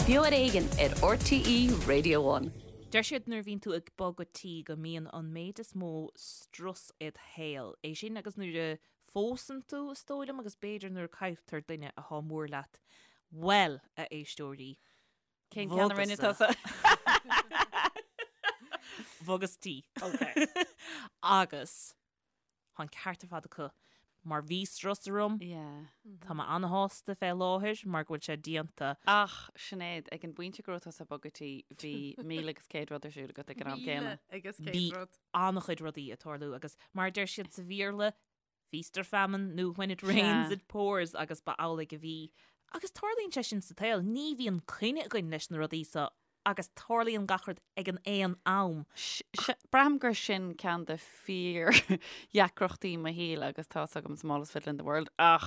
Beo ar Éigean ar RTÉ Radio One. Deir siad nuair a bhíonn tú ag bogadh tí go mbíonn an méid is mó strus id shaol. É sin agus nuair a phósann tú, is dóigh liom, agus b'fhéidir nuair a cailltear duine athá mór leat. Bhuel, a éisteoirí, Cén ceann a rinne tusa? Bhogas tí. Ok. Agus Tá an ceart ar fad acu. Mar bhí strus orm. Yeah. Tá mé an-shásta fé láthair mar go bhfuil sé déanta. Ach, Sinéad, ag an bpointe go raibh tusa ag bogadh tí, bhí 1,100 rud ar siúl agat ag an am céanna. 1,100 Bhí rud. an-chuid rudaí ag tarlú agus mar a deir siad sa Bhéarla, feast or famine nó when it rains it pours agus ba amhlaidh a bhí. Agus tarlaíonn sé sin sa tsaol, ní bhíonn coinne againn leis na rudaí so agus tarlaíonn gach rud ag an aon am. Braithim gur sin ceann de fíor-dheacrachtaí mo shaoil agus tá 's agam smallest fiddle in the world ach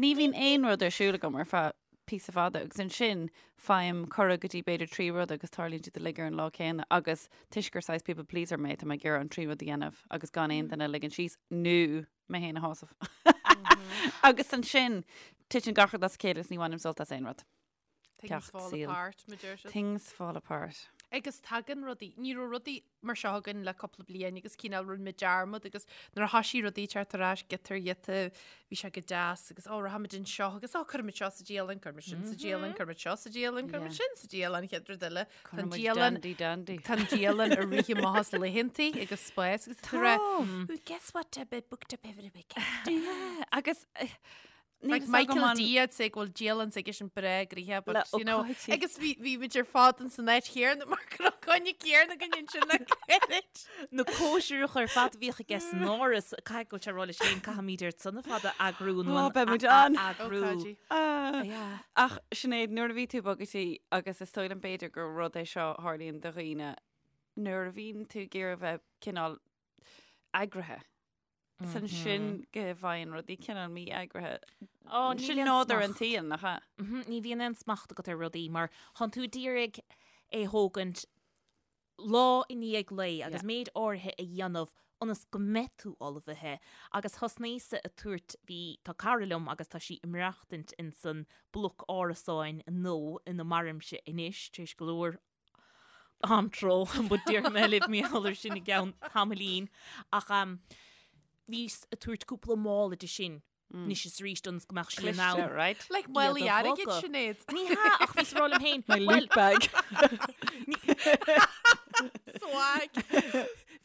ní bhíonn aon rud ar siúl agam ar feadh píosa fada agus ansin faighim cuireadh go dtí b'fhéidir 3 rud agus tarlaíonn siad uilig ar an lá céanna agus toisc gur saghas people pleaser mé tá mé ag iarraidh an 3 rud a dhéanamh agus gan aon duine a ligean síos nó mé féin a shásamh. Agus ansin titeann gach rud as a chéile is ní bhainim sult as aon rud. Things Ceacht fall saoil. apart, mar deir siad. Things fall apart. Agus tagann rudaí, ní raibh rudaí mar seo againn le cúpla bliain agus cineál rinne muid dearmad agus nuair a thoisigh rudaí teacht ar ais giota ar ghiota bhí sé go deas agus ó rachaimid anseo agus ó cuirfimid seo sa dialann, cuirfimid sin sa dialann, cuirfimid seo sa dialann, cuirfimid sin sa dialann, chéad rud eile. Tá an Cuirfimid dialann dandy dandy. Tá an dialann ag rith amach as laethantaí agus spás agus tá rá, "Well, guess what, I've been booked up every weekend. Yeah, agus eh, Like Michael D I'd say go bhfuil dialann s'aigesean breá gnoitheach but you know agus bhí bhí muid ar fad in san áit chéanna mar go raibh coinne céanna againn ansin le gairid. Na cóisireacha ar fad a bhíodh aige san áras, caithfidh go bhfuil sé ag rá leis féin caithfimid iad san ar fad a eagrú nó Ó, an beidh muid ann. eagrú. Ócáidí. Yeah. Ach Sinéad, nuair a bhí tú ag bogadh tí agus is dóigh liom b'fhéidir gur rud é seo a tharlaíonn do dhaoine nuair a bhíonn tú ag iarraidh a bheith cineál eagraithe. Is ansin go bhfaigheann rudaí cineál mí-eagraithe. Ó, níl Sin aon nádúr an smacht. tsaoil, nach ea? Ní bhíonn aon smacht agat ar rudaí mar tánn tú d'iarraidh é thógaint lá i ndiaidh lae agus méid áirithe a dhéanamh ionas go mbeidh tú ullmhaithe. Agus thosnaíos-sa ag tabhairt, bhí, tá cara liom agus tá sí ag maireachtaint insan bloc árasáin nua ina mairimse anois, tar éis go leor antró, but déarfaidh mé libh mar gheall air sin i gceann tamaillín. Ach bhíos ag tabhairt cúpla mála di sin anois is arís ionas go mbeadh sí in ann. Cliste, right? Like málaí Iad a airgid, bhogadh. Sinéad. Ní hea, ach bhíos ag rá liom féin, My well, loot bag. Swag.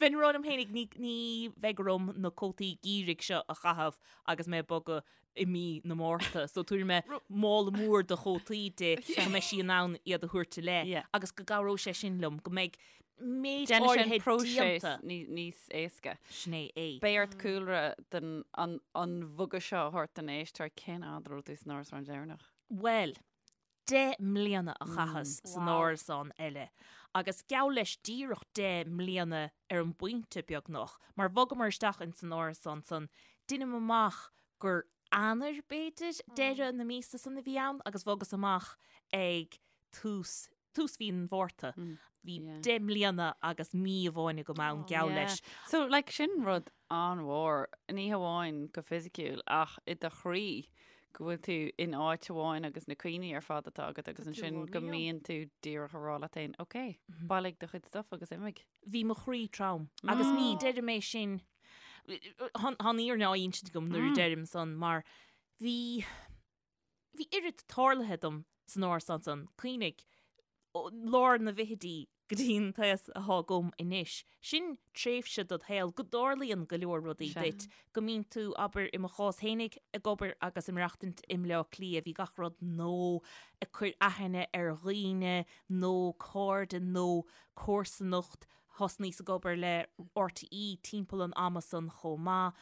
Bheinn ag rá liom féin, ní, ní bheidh orm na cótaí geimhridh seo a chaitheamh agus mé ag bogadh i mí na Márta. So tabharfaidh mé mála mór de chótaí di go mbeidh sí in ann iad a thabhairt i leith Yeah. agus go gcabhróidh sé sin liom, go mbeidh méid Déanfaidh sé an áirithe próiseas déanta. ní- níos éasca. Sin é é. Beidh ort cúlra den an, an bhogadh seo a thabhairt don éisteoir cén fhad a raibh tú san árasán deireanach? Bhuel, 10 mbliana a chaitheas san árasán eile agus geall leis díreach 10 mbliana ar an bpointe beagnach, mar bhogamar isteach ins an árasán san, deinim amach gur Eanáir, b'fhéidir, deireadh na míosa san a bhí ann agus bhogas amach ag tús, tús mhí an Mhárta. Bhí 10 mbliana agus mí amháin agam ann, geall leis. So, like, sin rud an-mhór, ní hamháin go fisiciúil ach i do chroí go bhfuil tú in áit amháin agus na cuimhní ar fad atá agat agus ansin go mbíonn tú díreach ag rá leat féin, ok, bailigh do chuid stuff agus imigh. Bhí mo chroí trom agus ní deirim é sin, tá an fhírinne á insint agam nuair a deirim san mar bhí, bhí oiread tarlaithe dom san árasán san, cuimhnigh, ó lár na bhfichidí go dtí an t-aos athá agam anois. Sin tréimhse dod shaol go dtarlaíonn go leor rudaí duit, go mbíonn tú, abair, i mo chás fhéinig, ag obair agus ag maireachtaint i mBleá Cliath, bhí gach rud nó ag cur aithne ar dhaoine nó cairde nó comharsanacht, thosnaíos ag obair le RTÉ timpeall an ama san chomh maith.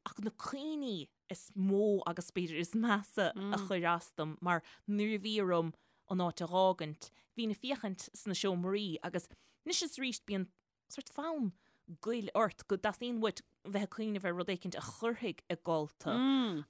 Ach na cuimhní is mó agus b'fhéidir is measa a chuir as dom mar nuair a bhí orm an áit a dh'fhágaint, bhínn ag féachaint sna seomraí agus anois is arís bíonn sort fonn goil ort go dteastaíonn uait bheith ag cuimhneamh ar rud éicint a chuirfidh ag gol tú.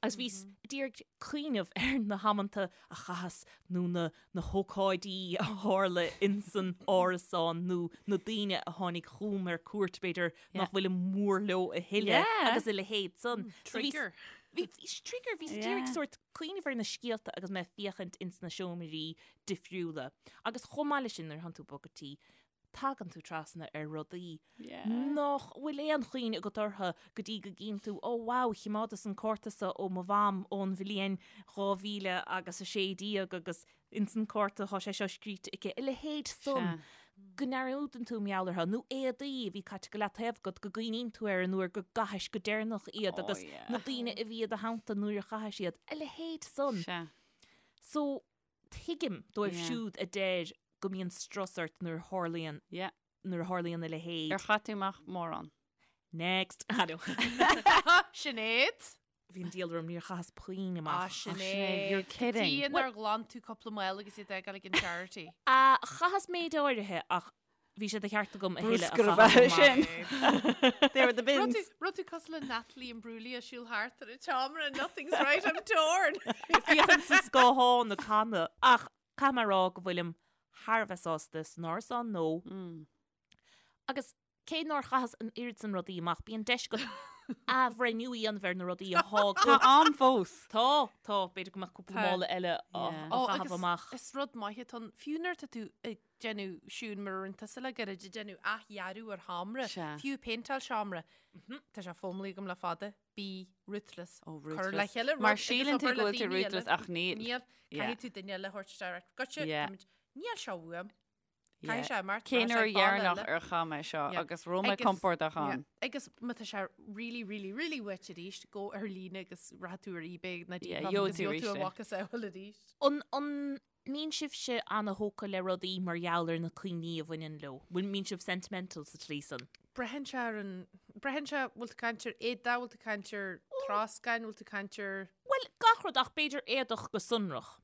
Agus bhíos ag iarraidh cuimhneamh ar na hamanta a chaitheas nó na na hócáidí a tharla insan árasán nó na daoine a tháinig chugam ar cuairt, b'fhéidir, nach bhfuilim mór leo a thuilleadh agus a leithéid san. Trigger. Bhí trigger, bhí yeah. sort cuimhneamh ar na scéalta agus mé ag féachaint ins na seomraí difriúla. Agus chomh maith leis sin nuair atánn tú ag bogadh tí, tagann tú trasna ar rudaí nach bhfuil aon chuimhne agat orthu go dtí go gcíonn tú, oh wow, chimeádas an cárta seo ó mo mham ón bhliain 2000 agus 16 agus ins an cárta tá sé seo scríte aici, a leithéid san go ndearúdann tú mar gheall orthu, nó éadaí a bhí caite go leataobh agat go gcuimhníonn tú ar an uair go gcaithis go deireanach iad agus na daoine a bhí i do theannta nuair a chaithis iad, a leithéid san. So, tuigim dóibh siúd a deir go mbíonn strus ort nuair a tharlaíonn nuair a tharlaíonn a leithéid. Ar chaith tú amach mórán? Next. Sinéad? Bhí an diabhal orm, níor chaitheas puinn amach. Ah, Sinéad. You're kidding. Cad chuige nár ghlan tú cúpla mála agus iad a fhágáil ag an charity. Ah, chaitheas méid áirithe ach bhí sé de cheart agam a thuilleadh a Bruscar ab ea chaitheamh sin. amach. There were the Raibh bins. tú- raibh tú cosúil le Natalie Imbruglia ag siúl thart ar an tseomra and nothing's right, I'm torn. Féachaint sa scáthán ag canadh. Ach caithfidh mé a rá go bhfuilim thar a bheith sásta san árasán nua. Agus cé nár chaitheas an oiread san rudaí amach, bíonn deis agat athbhreithniú a dhéanamh ar na rudaí atá agat. Tá am fós. Tá, tá, b'fhéidir go mbeadh cúpla Tá. mála eile á Yeah. á Ó, chaitheamh agus amach. Is rud maith atá ann, fiú nuair atá tú ag déanamh siún mar a rinne tusa le gairid, ag déanamh athdhearadh ar sheomra, Sea. fiú péinteáil seomra, tá sé foghlamtha agam le fada, bí ruthless. Ó, Cur le ruthless. chéile Mar rud agus síleann tú obair go le bhfuil tú daoine eile. ruthless ach níl. Níl, Yeah. caithfidh tú duine eile a thabhairt isteach. Goitse, Yeah. táimid- níl seo uaim. Yeah. Caithfidh sé imeacht, Cén rachaidh uair sé ag baile dheireanach eile. ar chaith mé seo Yeah. agus raibh mé Agus- compordach yeah. ann. Agus má tá sé really, really, really uait arís, gabh ar líne agus rachaidh tú ar eBay nó Yeah, Depop gheobhaidh agus tú gheobhaidh tú arís a é. mhacasamhail arís. An, an mbíonn sibhse ana-thógtha le rudaí mar gheall ar na cuimhní a bhaineann leo? Bhfuil mbíonn sibh sentimental sa tslí san? Braitheann sé ar an, braitheann sé, bhfuil tú ag caint ar éadaí, bhfuil tú ag caint ar troscán, bhfuil tú ag caint ar... Bhuel, gach rud ach b'fhéidir éadach go sonrach.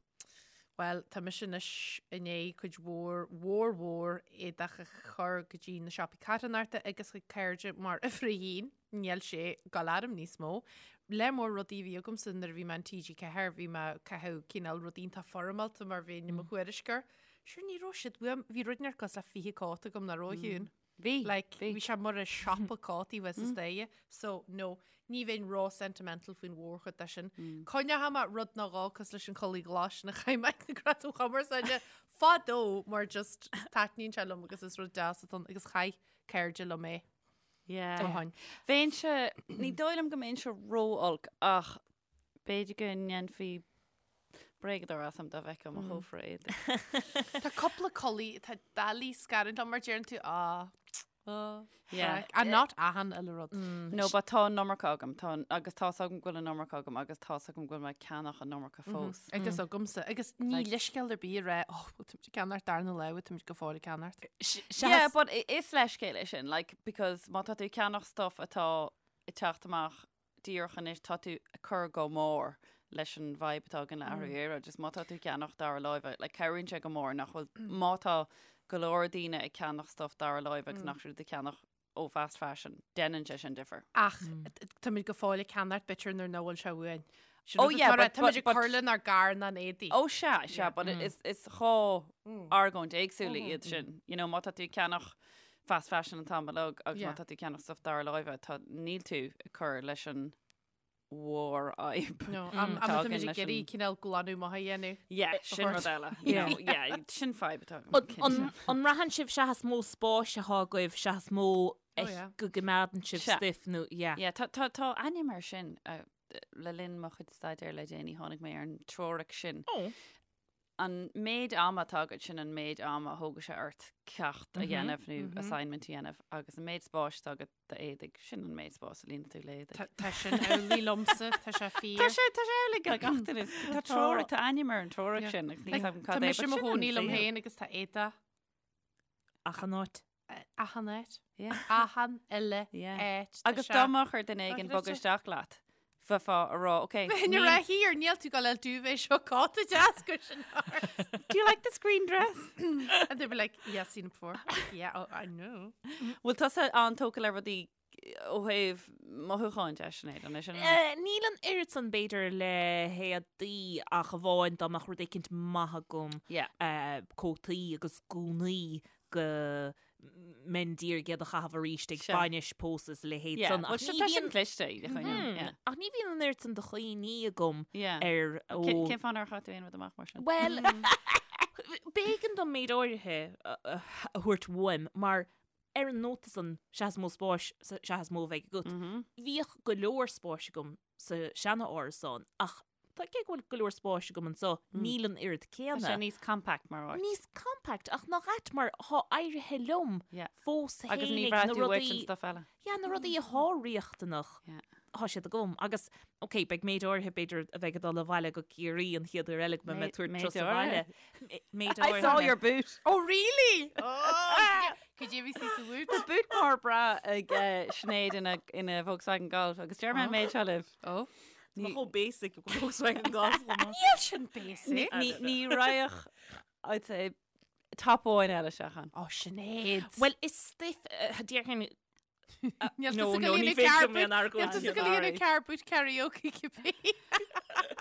Bhuel, tá mise anois i ndiaidh cuid mhór, mhór mhór éadach a chur go dtí na siopaí carthanachta agus chuig cairde mar uimhir a haon, níl sé ag gabháil orm níos mó. Lear mór rudaí a bhí agamsa nuair a bhí mé in TG4, bhí mé ag caitheamh cineál rudaí iontach foirmeálta mar bheinn i mo thuairisceoir. Sure, ní raibh siad uaim, bhí rud inteacht cosúil le 20 cóta agam nach raibh a Shiún. Bhí. Like, bhí. bhí sé mar a siopa cótaí thuas an staighre. So, no, ní bheinn ró-sentimental faoin mhórchuid de sin. Coinneoidh mé rud nó dhó cosúil leis an chulaith ghlas sin a chaith mé ag na Gradaim Chumarsáide fadó mar just taitníonn sé liom agus is rud deas atá ann agus chaith cairde liom é Yeah. ó shin. Bheinnse, ní dóigh liom go mbeinnse ró-olc ach b'fhéidir go ndéanfaí Bréagadóir asam dá bhfeicfeá mo chófra éadaigh. Tá cúpla culaith atá doiligh scarúint liom mar deireann tú á á Yeah. And not achan uile rud. No, but tá an iomarca agam, tá an, agus tá's agam go bhfuil an iomarca agam agus tá's agam go bhfuil mé ag ceannach an iomarca fós. Agus agamsa, agus ní Like- leithscéal ar bith a rá, oh, bhfuil tú ag ceannacht darna lá, bhfuil tú go fóill ag ceannacht. Yeah, but i- is leithscéal é sin, like, because má tá tú ag ceannach stuff atá ag teacht amach díreach anois tá tú ag cur go mór leis an bhfadhb atá againn le athrú aeráide. Just má tá tú ag ceannach dara láimhe, like, cabhraíonn sé go mór nach bhfuil, má tá go leor daoine ag ceannach stuff dara láimhe agus nach siad ag ceannach ó fast fashion, déanann sé sin difear. Ach táimid go fóill ag ceannacht b'fhéidir nuair nach bhfuil sé uainn. Sin Oh, rud yeah, atá but- táimid but- ag but- cur lenár gcarnán éadaí. Ó sea, sea, but is, is dhá argóint éagsúla iad sin. You know, má tá tú ag ceannach fast fashion an t-am uilig agus má Yeah. tá tú ag ceannach stuff dara láimhe, tá, níl tú ag cur leis an mhórfhadhb. No, am atá am againn táimid leis ag iarraidh an- cineál glanadh maith a dhéanamh. Yeah, sin rud eile. You know, yeah, sin fadhb atá agam, An- cinnte. An an mbraitheann sibh seachas mó spáis atá agaibh seachas mó Oh, yeah. go gcoimeádann sibh Sea. stuif nó yeah. Yeah, tá, tá, tá ainm air sin uh, le linn mo chuid staidéir le déanaí tháinig mé ar an teoiric sin. Oh. An méid ama atá agat sin an méid ama a thógann sé ort ceacht a dhéanamh nó assignment a dhéanamh agus an méid spáis atá agat d'éadaigh sin an méid spáis a líonann tú le éadaigh. Tá tá sin amhlaidh liomsa, tá sé fíor. Tá sé tá sé amhlaidh le gach duine. Tá teoiric, tá ainm ar an teoiric Yeah. sin agus níl Like, a fhios agam Tá cad é, mise but i mo sin an chónaí liom saol. féin agus tá éadaí Achan áit. achan áit. Yeah. Achan uile Yeah. áit. Tá Agus sé- dá mbeadh ar duine éigin Tá bogadh sé- isteach leat, bheifeá ag rá, ok, Bheinn ag rá here, níl tú ag gabháil duvet seo cóta deas go sin ort. Do you like this green dress? And they'd be like, yeah, seen it before. Yeah, oh, I know. Bhfuil tusa an-tógtha le rudaí ó thaobh mothúcháin de, Sinéad, an é sin an- Eh, Níl an oiread san b'fhéidir le héadaí ach amháin dá mbeadh rud éicint maith agam Yeah. eh, cótaí agus gúnaí go. mbeinn d'iarraidh iad a chaitheamh arís ag bainis, pósadh is a leithéid san. Ach ní bhíonn cliste iad a choinneáil. Ach ní bhíonn an oiread san de chuimhní agam ar ó. Cén fáth nár chaith tú aon rud amach mar sin? Bhuel, b'éigean dom méid áirithe a thabhairt uaim mar ar an nóta san sea is mó spáis sea is mó a bheidh agat. Bhíodh go leor spáis agam sa seana-árasán ach Tá cé go bhfuil go leor spáis agam anseo, níl an oiread céanna. Tá sé níos compact mar áit. Níos compact, ach nach ait mar thá éirithe liom fós féinig Agus ní bhraith tú uait an stuff eile. Yeah, na rudaí athá riachtanach, thá siad agam. Agus, ok, beidh méid áirithe b'fhéidir a bheidh ag dul abhaile go Ciarraí an chéad uair eile go mbeidh mé ag tabhairt turas abhaile. Méid áirithe. I saw your boot. Oh really? Oh, Cad é bhí sí sa bhoot? Tá boot mór breá ag Sinéad ina Volkswagen Golf agus deir mé an méid seo libh. Oh. Tá chomh basic go Volkswagen Golf. Níl sin basic. Ní raghadh I'd say top amháin eile isteach ann. Ó Sinéad. Well is stuif déarfainn Níl tusa go líonadh car boot Níl tusa go líonadh car boot karaoke cibé.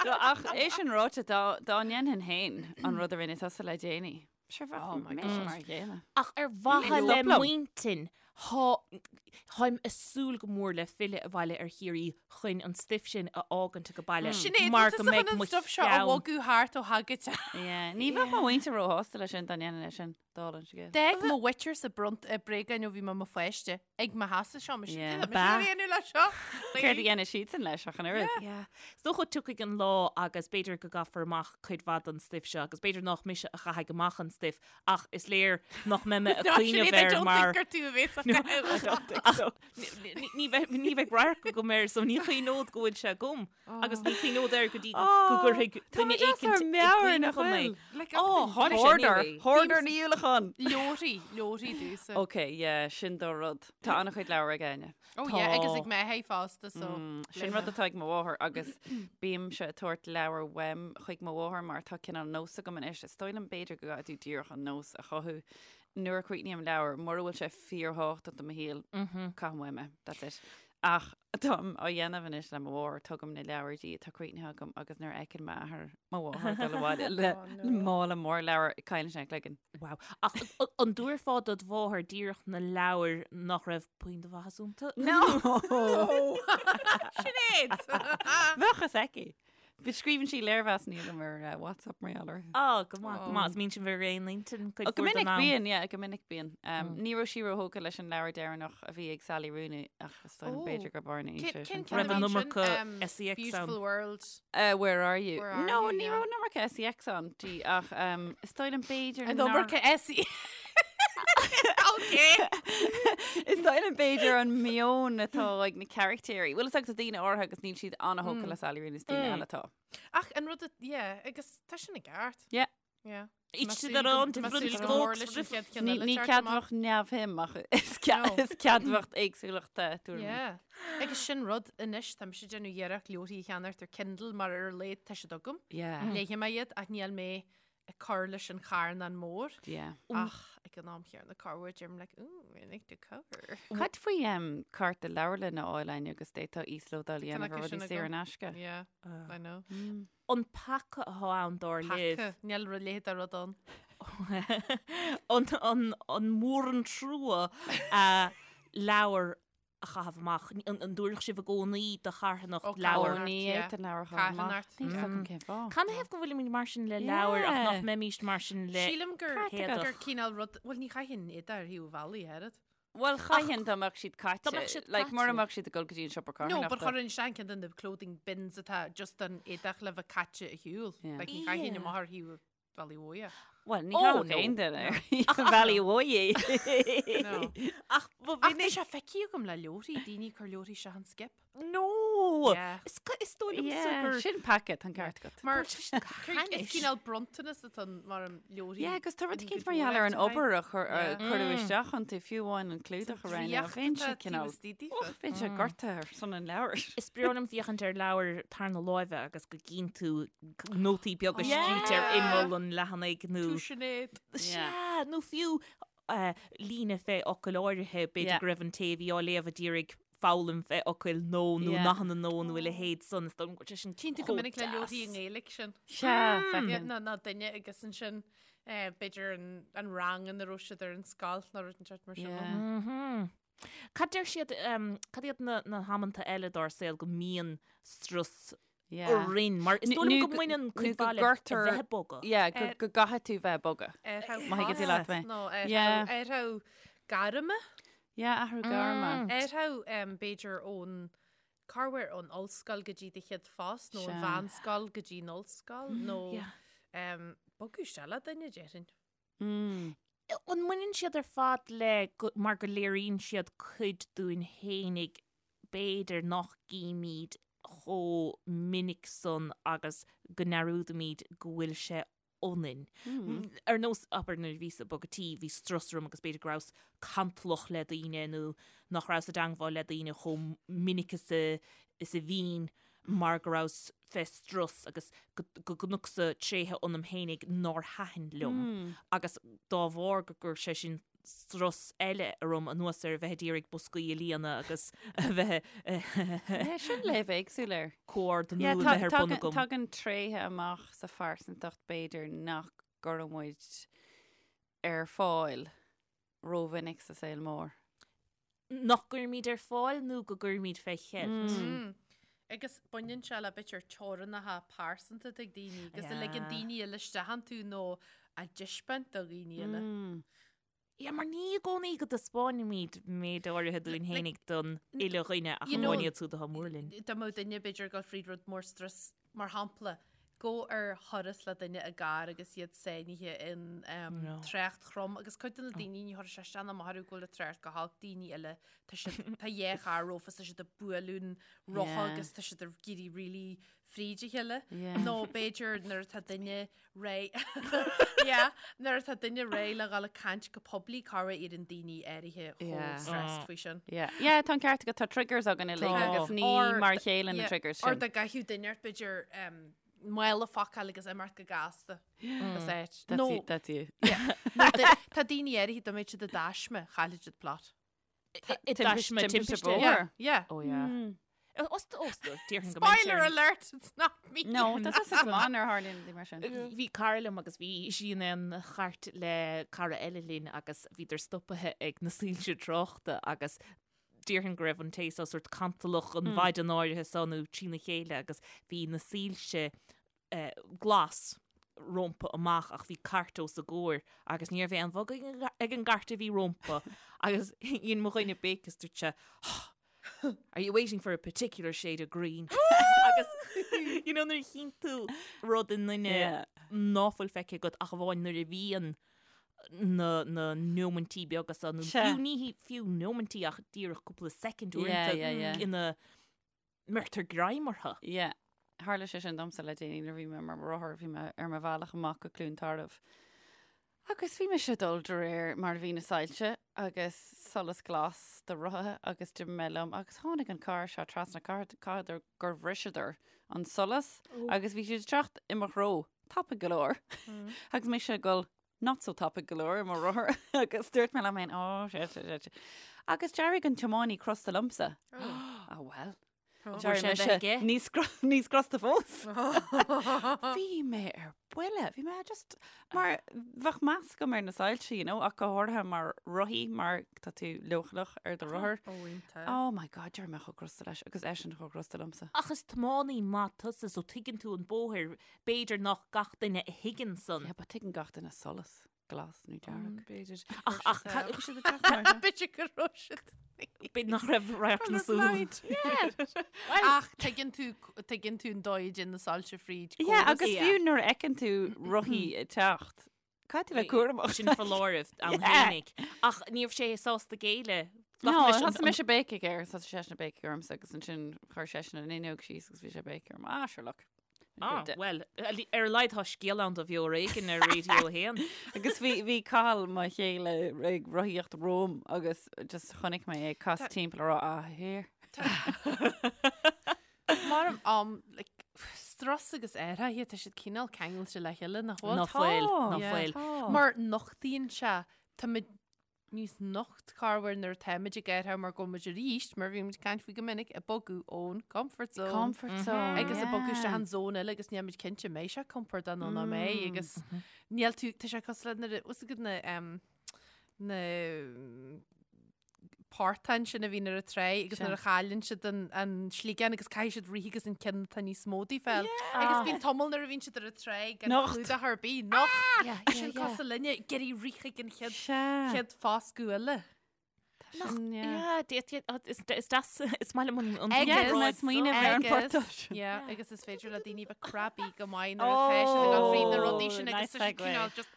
Ach é sin ráite dá ndéanfainn féin an rud a rinne tusa le déanaí. Sure bheadh Oh my mé God. mar a chéile. Ach ar mhaithe Stop le liom. m'intinn, thá, tháim a' súil go mór le filleadh abhaile ar Chiarraí chun an stuif sin a fhágaint age baile Sinéad, mar bhfuil go tusa mbeidh chun an mo stuff seo a cheann. bhogadh thart ó thagaid. Yeah, Ní bheadh mo mhuintir róshásta leis sin dá ndéanfainn é sin, dála an scéil. D'fhág mo mhuintir-sa bront eh, bréagáin ó bhí mé i mo pháiste ag mo sheasamh seo, mise Yeah. yeah. mise dhéanamh le seo. Céard a dhéanfaidh siadsan leis ach an oiread? Yeah. Is dócha tiocfaidh an lá agus b'fhéidir go gcaithfear amach cuid mhaith den stuif seo agus b'fhéidir nach mise a chaithfidh amach an stuif ach is léir nach mbeidh mé ag cuimhneamh air mar gur tú a bhéas Ach ní bheidh ní bheidh radharc agam air so ní chuimhneod go bhfuil sé agam agus ní chuimhneod air go dtí go gcuirfidh duine éicint i gcuimhne dhom é. Ó, tháinig sé Hoarder, anyway. hoarder Ní Uallacháin. Leoraí, leoraí dúsa. Ok, yeah, sin do rud. Tá an-chuid leabhar ag Áine. Oh yeah, agus ag m'athair fosta, so. Sin rud atá ag mo mháthair agus bímse ag tabhairt leabhar uaim chuig mo mháthair mar tá cineál nós agam anois. Is dóigh liom b'fhéidir go gcaithfidh tú díreach an nós a chothú. Nuair a chríochnaím leabhar, mura bhfuil sé fíorthábhachtach do mo shaol, caithim uaim é. That's it. Ach táim á dhéanamh anois le mo mháthair, tugaim na leabhair di atá críochnaithe agam agus nuair a fheiceann m'athair mo mháthair ag dul abhaile le mála mór leabhar, cailleann sé a chloigeann. Wow. Ach an dtabharfá dod mháthair díreach na leabhair nach raibh puinn de mhaitheas iontu? No! Sinéad! Bheadh fhios aici. Bhí scríobhann sí léirmheasanna dom ar eh, WhatsApp mar gheall orthu. Á, go maith, go maith. Is mbíonn sibh ar aon intinn cuid Ó, Go mhór den minic am. bíonn, yeah, go minic bíonn. Um, Ní raibh sí róthógtha leis an leabhar deireanach a bhí ag Sally Rooney ach is dóigh liom Ó. b'fhéidir gur arna Cén sé sin. cén ceann Raibh a an bhí ansin? iomarca Um, SEX ann. Beautiful World. Uh, where are you? Where are no, you, ní yeah. raibh an iomarca SEX ann di ach um, is dóigh liom b'fhéidir An nár- iomarca SE. Okay. Is dóigh liom b'fhéidir an meon atá ag na carachtéirí. Bhfuil fhios agat daoine áirithe agus níl siad an-thógtha le Sally Rooney is daoine eile atá. Ach an rud, yeah, agus tá sin i gceart. Yeah. Yeah. Each to their own different strokes. Ní ní ceadmhach neamhshuim ach is No. is ceadmhach éagsúlachta tuairimí. Yeah. Agus sin rud anois tá mise ag déanamh iarracht leabharthaí a cheannacht ar Kindle mar ar a laghad tá siad agam. Yeah. Léifidh mé iad ach níl mé ag cur leis an charnán mór. Yeah. Ach ag an am chéanna corruair deirim like, ooh, I like the cover. Cad faoi um, cárta leabharlainne a fháil Áine agus d'fhéadfá íoslódáil a dhéanamh ar acu sin rudaí saor agam. in aisce? Yeah, I know. An peaca atá ann dar libh. Peaca, níl rud léithe rud ann. An, an, an mór an trua a leabhar a chaitheamh amach. An, an dtabharfadh sibh i gcónaí do charthanacht Ó, leabhar? Ó, ní yeah. fhéadfainn leabhar a chaitheamh amach. Carthanacht. Níl fhios agam cén fáth. Canathaobh go bhfuilimid mar sin le leabhair ach nach Yeah. mbeimíst mar sin le Sílim gur Ceart gur cineál rud, bhuel ní chaithfinn éadaí ar thaobh an bhealaigh, oiread. Bhuel, chaithfinn dá mbeadh siad caite. Dá mbeadh siad Like, mura caite. mbeadh siad ag dul go dtí an siopa No, but carthanachta. chuirfinn isteach ceann de na clothing bins atá just an éadach le bheith caite ar shiúl. Yeah. Like, ní chaithfinn Yeah. amach ar thaobh an bhealaigh mhóir. Bhuel, ní Oh, chaithfeadh no. aon duine ar thaobh an bhealaigh mhóir. No. Ach ba Ach tá mhinic sé feicthe agam le leabharthaí, daoine ag cur leabharthaí isteach an skip. No! Yeah. Is is dóigh liomsa Yeah, gur sin peaca, tá an ceart agat. Mar Bhuel, sin is cainis. cineál bronntanas atá ann mar an leabharthaí. Yeah, agus tá rud in éicint go mar gheall ar an dóigh obair a chur- a Yeah. cuireadh isteach iontu, fiú amháin an clúdach a roghnú. Draíocht Bheinn sé atá taobh cineál istigh daofa. Och, bheinn sé gortaithe ar son an leabhair. Is breá liom féachaint ar leabhar tarna láimhe agus go gcíonn tú nótaí beaga Yeah. scríte ar imeall an leathanaigh nó Tú Sinéad. Sea, nó fiú eh, líne fé fhocal áirithe, b'fhéidir Yeah. go raibh an té a bhí á léamh a d'iarraidh. foghlaim fé fhocail nó nó nathanna nó nó a leithéid san is dóigh liom go bhfuil sé sin Tchíonn tú go chomh minic le leabharthaí i deas. nGaeilge sin. Sea, feiceann. Ná ná duine agus ansin eh, b'fhéidir an, an rang ina raibh siad ar an scoil nó rud inteacht mar sin. Yeah. Mhm. Cad deir siad, em, cad iad na, na hamanta eile dár saol go mbíonn strus Yeah. orainn, mar is Nó- dóigh liom nó go mbaineann nó cuid go mhaith le gcuirtear- bheith ag bogadh. Yeah, go Eh, go gcaithfidh tú bheith ag bogadh. Má Má thuigeann tú leat mé. Nó Yeah. athrú gairme. Yeah, athrú gairme. Athrú b'fhéidir ón corruair ón ollscoil go dtí do chéad phost nó an Sea. mheánscoil go dtí an ollscoil nó Yeah. em, bogadh isteach le duine déarfainn. Mm. An mbaineann siad ar fad le go, mar go léiríonn siad cuid dúinn fhéinig b'fhéidir nach gcímid chomh minic san agus go ndearúdaimid go bhfuil sé ionainn. Ar nós, abair, nuair a bhíos ag bogadh tí, bhí strus orm agus b'fhéidir go rabhas cantalach le daoine nó nach rabhas i dteangmháil le daoine chomh minic is a is a bhínn mar go rabhas fé strus agus go go gconacsa tréithe ionam fhéinig nár thaitin liom agus dá bharr go gcuir sé sin strus eile orm anuas ar a bheith ag iarraidh boscaí a líonadh agus a bheith Yeah, sin léamh éagsúil air. comhordnú Yeah, a bheith ar bun tagann agam. tagann tréithe amach sa phearsantacht b'fhéidir nach gcuireann muid ar fáil rómhinic sa saol mór. Nach gcuirimid ar fáil nó go gcuirimid fé cheilt. Mm. Agus baineann sé le b'fhéidir teorainneacha pearsanta ag daoine agus a ligeann daoine eile isteach iontu nó a dtaispeáint do dhaoine eile. Mm. Yeah, mar ní i gcónaí go dtaispeáinimid méid áirithe dúinn fhéinig don uile dhuine ach You know, amháin iad siúd atá mór linn. Dá mbeadh duine b'fhéidir ag dul fríd rud mór strus, mar shampla, gabh ar thuras le duine i gcarr agus iad sáinnithe in um, No. trácht throm agus cuid de na daoine ní chuirfidh sé isteach ná amach orthu go bhfuil an trácht go holc daoine eile tá siad tá dhá charr rompu tá siad ag bualadh an rotha Yeah. agus tá siad ag éirí really fríd a chéile. Yeah. Nó b'fhéidir nuair atá duine réidh yeah, nuair atá duine réidh le dhul ag caint go poiblí corruair éiríonn daoine áirithe chomh Yeah. stressed faoi sin. Yeah, yeah, tá an ceart agat, tá triggers againn uilig Tá. agus ní Or mar a chéile na yeah, triggers Or sin. dá gcaithfeadh duine ort b'fhéidir um, mála a phacáil agus imeacht go gasta. As áit. That's Nó you, that's you. nó di- tá daoine áirithe dá mbeadh siad i dtaisme, chaillfidh siad plot. I dtaisme timpiste. bóthair. Yeah, yeah. Oh yeah. Os os déarfainn go mbeidh Spoiler sé- alert, it's not me. No, tá tusa go maith nuair a tharlaíonn rudaí mar sin. Bhí cara liom agus bhí sí in aon chairt le cara eile linn agus bhíodar stopaithe ag na soilse tráchta agus déarfainn go raibh an té seo sórt cantalach an mhaidin áirithe seo nó trína chéile agus bhí na soilse eh, glas rompu amach ach bhí cairt os a gcomhair agus ní raibh aon bhogadh ag an gcairt a bhí rompu agus dhein mo dhuine béic is dúirt sé Are you waiting for a particular shade of green? agus you know, nuair a chíonn tú rud i nduine Yeah. ná fuil feicthe agat ach amháin nuair a bhíonn na, na nóimintí beaga seo nó Sea. fiú ní hí- fiú nóimintí ach díreach cúpla soicind Yeah, uaireanta yeah, yeah. ina mbeirtear greim orthu. Yeah. Tharla sé sin domsa le déanaí nuair a bhí mé ar mo rothar, bhí mé ar mo bhealach amach go Cluain Tarbh. Agus bhí mise ag dul de réir mar a bhí na soilse agus solas glas do rothaithe agus d'imigh mé liom agus tháinig an carr seo trasna caithfidh gur bhriseadar an solas agus bhí siad ag teacht i mo threo tapaidh go leor agus mise ag dul not so tapaidh go leor i mo rothar agus dúirt mé liom féin oh shit shit shit. Agus d'éirigh an tiománaí crosta liomsa. Ah well. Bhfuair sé a bheith aige? Níos níos crosta fós. Bhí mé ar buile, bhí mé just mar bheadh meas agam ar na soilse, you know, ach go háirithe mar rothaí mar tá tú leochaileach ar do rothar. Ó, iontach. Oh my God, d'éirigh mé chomh crosta leis agus eisean chomh crosta liomsa. Ach is tiománaí maith tusa so tuigeann tú an bóthar, b'fhéidir nach gach duine a thuigeann san. Yeah, but tuigeann gach duine solas glas nó dearg. B'fhéidir. Ach ach ca- Bhí siad ag teacht mar seo. B'fhéidir go raibh siad. b'fhéidir nach raibh radharc na súl. Ach tuigeann tú tuigeann tú an dóigh a dtéann na soilse fríd. Yeah, córas. agus Yeah. fiú nuair a fheiceann tú rothaí ag teacht, caithfidh tú bheith cúramach. Sin foláireamh ann Yeah. fhéinig. Ach ní raibh sé sásta géilleadh. No, Ghlac leis an- thosaigh mise ag béicigh air, thosaigh seisean ag béicigh ormsa agus ansin chuir seisean an fhuinneog síos agus bhí sé ag béicigh orm. Ah, sure look. Ah, well, ar a laghad tá scéal ann do Bheo ar Éigean ar Radio 1. Agus bhí bhí Cathal mo chéile ag rothaíocht romham agus just chonaic mé é ag casadh timpeall ag rá ah here. Mar um, like, strus agus athruithe tá siad cineál ceangailte le chéile nach bhfuil? Ná fuil, ná Yeah. fuil. Mar nochtaíonn sé tá muid. níos nocht corruair nuair atáimid ag athrú mar go bhfuil muid arís, mar bhí muid ag caint faoi go minic, ag bogadh ón comfort zone. Comfort zone. Agus ag bogadh isteach an zone eile agus níl muid cinnte mbeidh sé compordach nó ná mbeidh agus níl tú, tá sé cosúil le nuair a, bhfuil a fhios agat na, em, na portáin sin a bhíonn ar an tráigh agus nuair a chailleann siad an, an sliogán agus caithfidh siad rith agus an ceann atá níos mó díobh a fháil. Agus bíonn tamall nuair a bhíonn siad ar an tráigh gan Nocht. clúdach ar bith, nocht. Yeah, yeah, Sin yeah. cosúil linne, ag iarraidh rith chuig an chéad, Sea. chéad foscadh eile. Sin, yeah. Yeah, is is deas is maith liom an an Agus- Yeah, comparáid is smaoineamh ar an Agus- portán sin. Yeah, agus is féidir le daoine bheith crabby go maith nuair atá siad ag dul fríd na rudaí sin agus nice tá siad segue. cineál just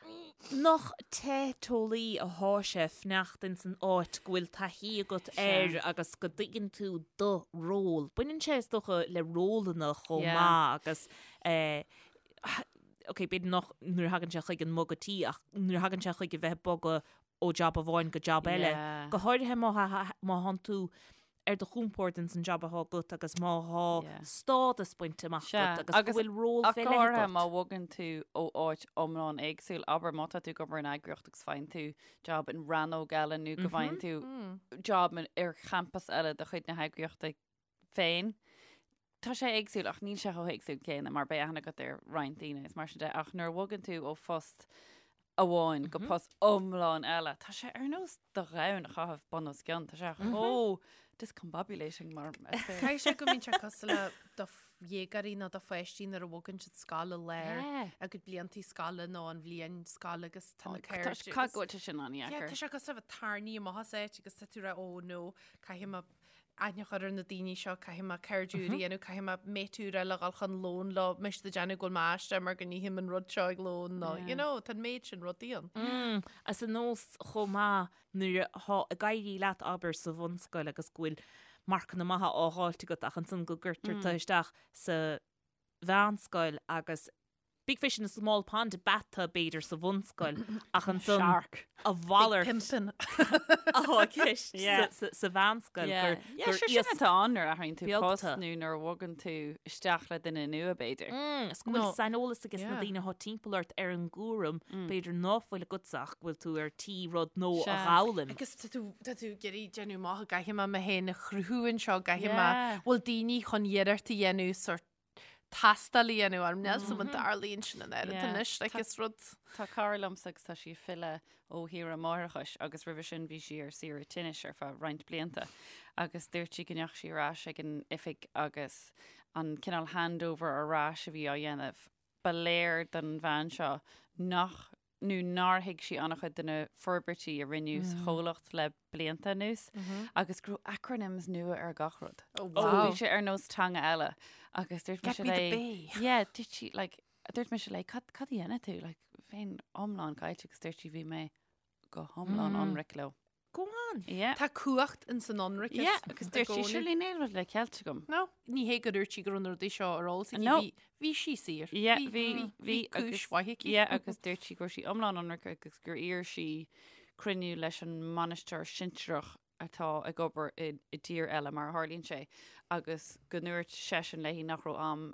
Nach teiteolaí athá sé fanacht ins an áit go bhfuil taithí agat air agus go dtuigeann tú do ról. Baineann sé is dócha le rólanna chomh Yeah. maith agus eh, ok, b'fhéidir nach nuair a thagann sé chuig an mbogadh tí ach nuair a thagann sé chuig a bheith ag bogadh ó jab amháin go jab eile. Yeah. Go háirithe má má thánn tú ar do chompord ins an jab athá agat agus má thá Yeah. stádas bainte amach Sea, agat agus go agus bhfuil ról Ach fé go leith háirithe agat. má bhogann tú ó áit iomlán éagsúil, abair má tá tú ag obair in eagraíocht agus faigheann tú job in rannóg eile nó go bhfaigheann tú job in- ar champas eile de chuid na heagraíochta féin. Tá sé éagsúil ach níl sé chomh héagsúil céanna mar beidh aithne agat ar roinnt daoine is mar sin de ach nuair a bhogann tú ó phost amháin go post iomlán eile, tá sé ar nós do dhomhan a chaitheamh bun os cionn, tá sé chomh discombobulating mar is féidir. Caithfidh sé go mbíonn sé cosúil le do dhéagóirí nó do pháistí nuair a bhogann siad scoil i lár a gcuid bliantaí scoile nó an bhliain scoile agus tá na cairde. Caithfidh go bhfuil sé sin Yeah, an-dheacair. tá sé cosúil le bheith tarraingthe amach as áit agus tá tú ag rá, oh no, caithfidh mé aithne a chur ar na daoine seo, caithfidh mé cairde úra a dhéanamh, caithfidh mé mate úr eile a dhul chun lóin leo, mise ag déanamh go bhfuil mé aisteach mar go n-ithim an rud seo ag lón nó, you know, tá an méid sin rudaí ann. Mm, is ar nós chomh maith nuair atá ag éirí leat abair sa bhunscoil agus go bhfuil marcanna maithe á dh'fháilt agat ach ansan go gcuirtear tú isteach sa mheánscoil agus big fish in a small pond ab ea tú b'fhéidir sa bhunscoil ach ansan Shark. a mhalairt Pimpin. atá i gceist Yeah. sa- sa mheánscoil Yeah. gur Yeah, gur sure, sin iasc atá ann nuair a athraíonn tú beag post tú. nó nuair a bhogann tú isteach le duine nua b'fhéidir. Mm, is go bhfuil No. saineolas aige sna Yeah. daoine atá timpeall ort ar an gcúram, b'fhéidir ná fuil agatsa ach go bhfuil tú ar tí rud nua a Sea. dh'fhoghlaim. Agus tá tú tá tú ag iarraidh déanamh amach gcaithfidh mé mé féin a chruthú anseo, gcaithfidh mé Yeah. bhfuil daoine chun iarracht a dhéanamh sort tástáil a dhéanamh orm. Níl 's agam an dtarlaíonn sin an oiread Yeah. anois, like is rud. Tá cara liomsa agus tá sí ag filleadh ó shaoire máithreachais agus roimhe sin bhí sí ar saoire tinnis ar feadh roinnt blianta agus dúirt sí go ndeachaigh sí ar ais ag an oifig agus an cineál handover ar ais a bhí á dhéanamh, ba léir don bhean seo nach nó nár thuig sí an-chuid de na forbairtí a rinneadh sa chomhlacht le blianta anuas agus go raibh acronyms nua ar gach rud. Oh, So wow. bhí sé ar nós teanga eile agus dúirt mise Get me the léi- bay. Yeah, dúirt sí, like, dúirt mise léi, cad, cad a dhéanann tú? Like, bheinn iomlán caillte agus dúirt sí bhí mé go hiomlán ionraic leo. Go on. Yeah. Tá cumhacht in san ionraiceas. Yeah, agus i dúirt sí gcónaí. surely níl rud le ceilt agam. No, ní hé go dúirt sí go raibh na rudaí seo ar eolas aici. No. Bhí, bhí sí saor. Yeah, bhí, bhí, bhí, bhí cúis agus- mhaith aici. Yeah, agus dúirt sí go raibh sí iomlán ionraic agus gur iarr sí cruinniú leis an mbainisteoir sinsearach atá ag obair i, i dtír eile mar a tharlaíonn sé agus go ndúirt seisean léi nach raibh am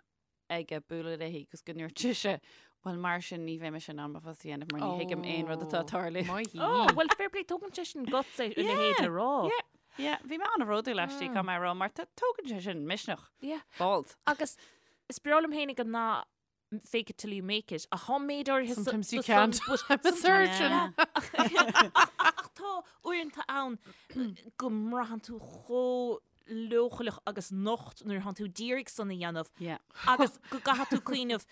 aige bualadh léi agus go ndúirt sise bhuel mar sin ní bheidh mise in ann mo phost a dhéanamh mar ní thuigim aon rud atá ag tarlú. Maith í. Oh, well, fair play, tógann sé sin guts é a leithéid a rá. Yeah, yeah, bhí mé an-bhródúil aisti caithfidh mé a rá mar tá- tógann sé sin misneach. Yeah. Balls. Agus is breá liom fhéinig an nath fake it till you make it. Ach tá méid áirithe sa- Sometimes you do some- can't. but I'm a sometimes- surgeon. Yeah. Ach tá uaireanta ann go mbraitheann tú chomh leochaileach agus nocht nuair atánn tú d'iarraidh san a dhéanamh Yeah. agus go gcaithfidh tú cuimhneamh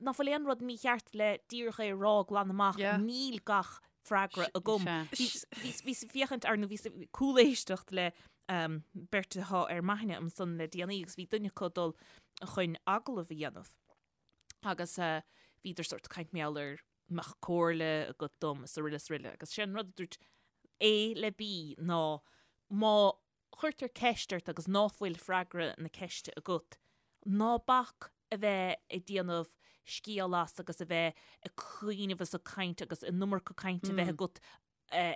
nach bhfuil aon rud mícheart le díreach é a rá glan amach Yeah. níl gach freagra agam. Sea. Bhíos ag féachaint ar nó bhíos ag cúléisteacht le um, beirt atá ar m'aithne ansan le déanaí agus bhí duine acu ag dul chun agallamh a dhéanamh. Agus uh, bhíodar sort caint mar gheall ar mbeadh comhairle agat dom is araile is araile. Agus sé an rud a dúirt A le B ná má chuirtear ceist ort agus ná fuil freagra na ceiste agat, ná bac a bheith ag déanamh scéal as agus a bheith ag cuimhneamh is ag caint agus an iomarca cainte a bheith agat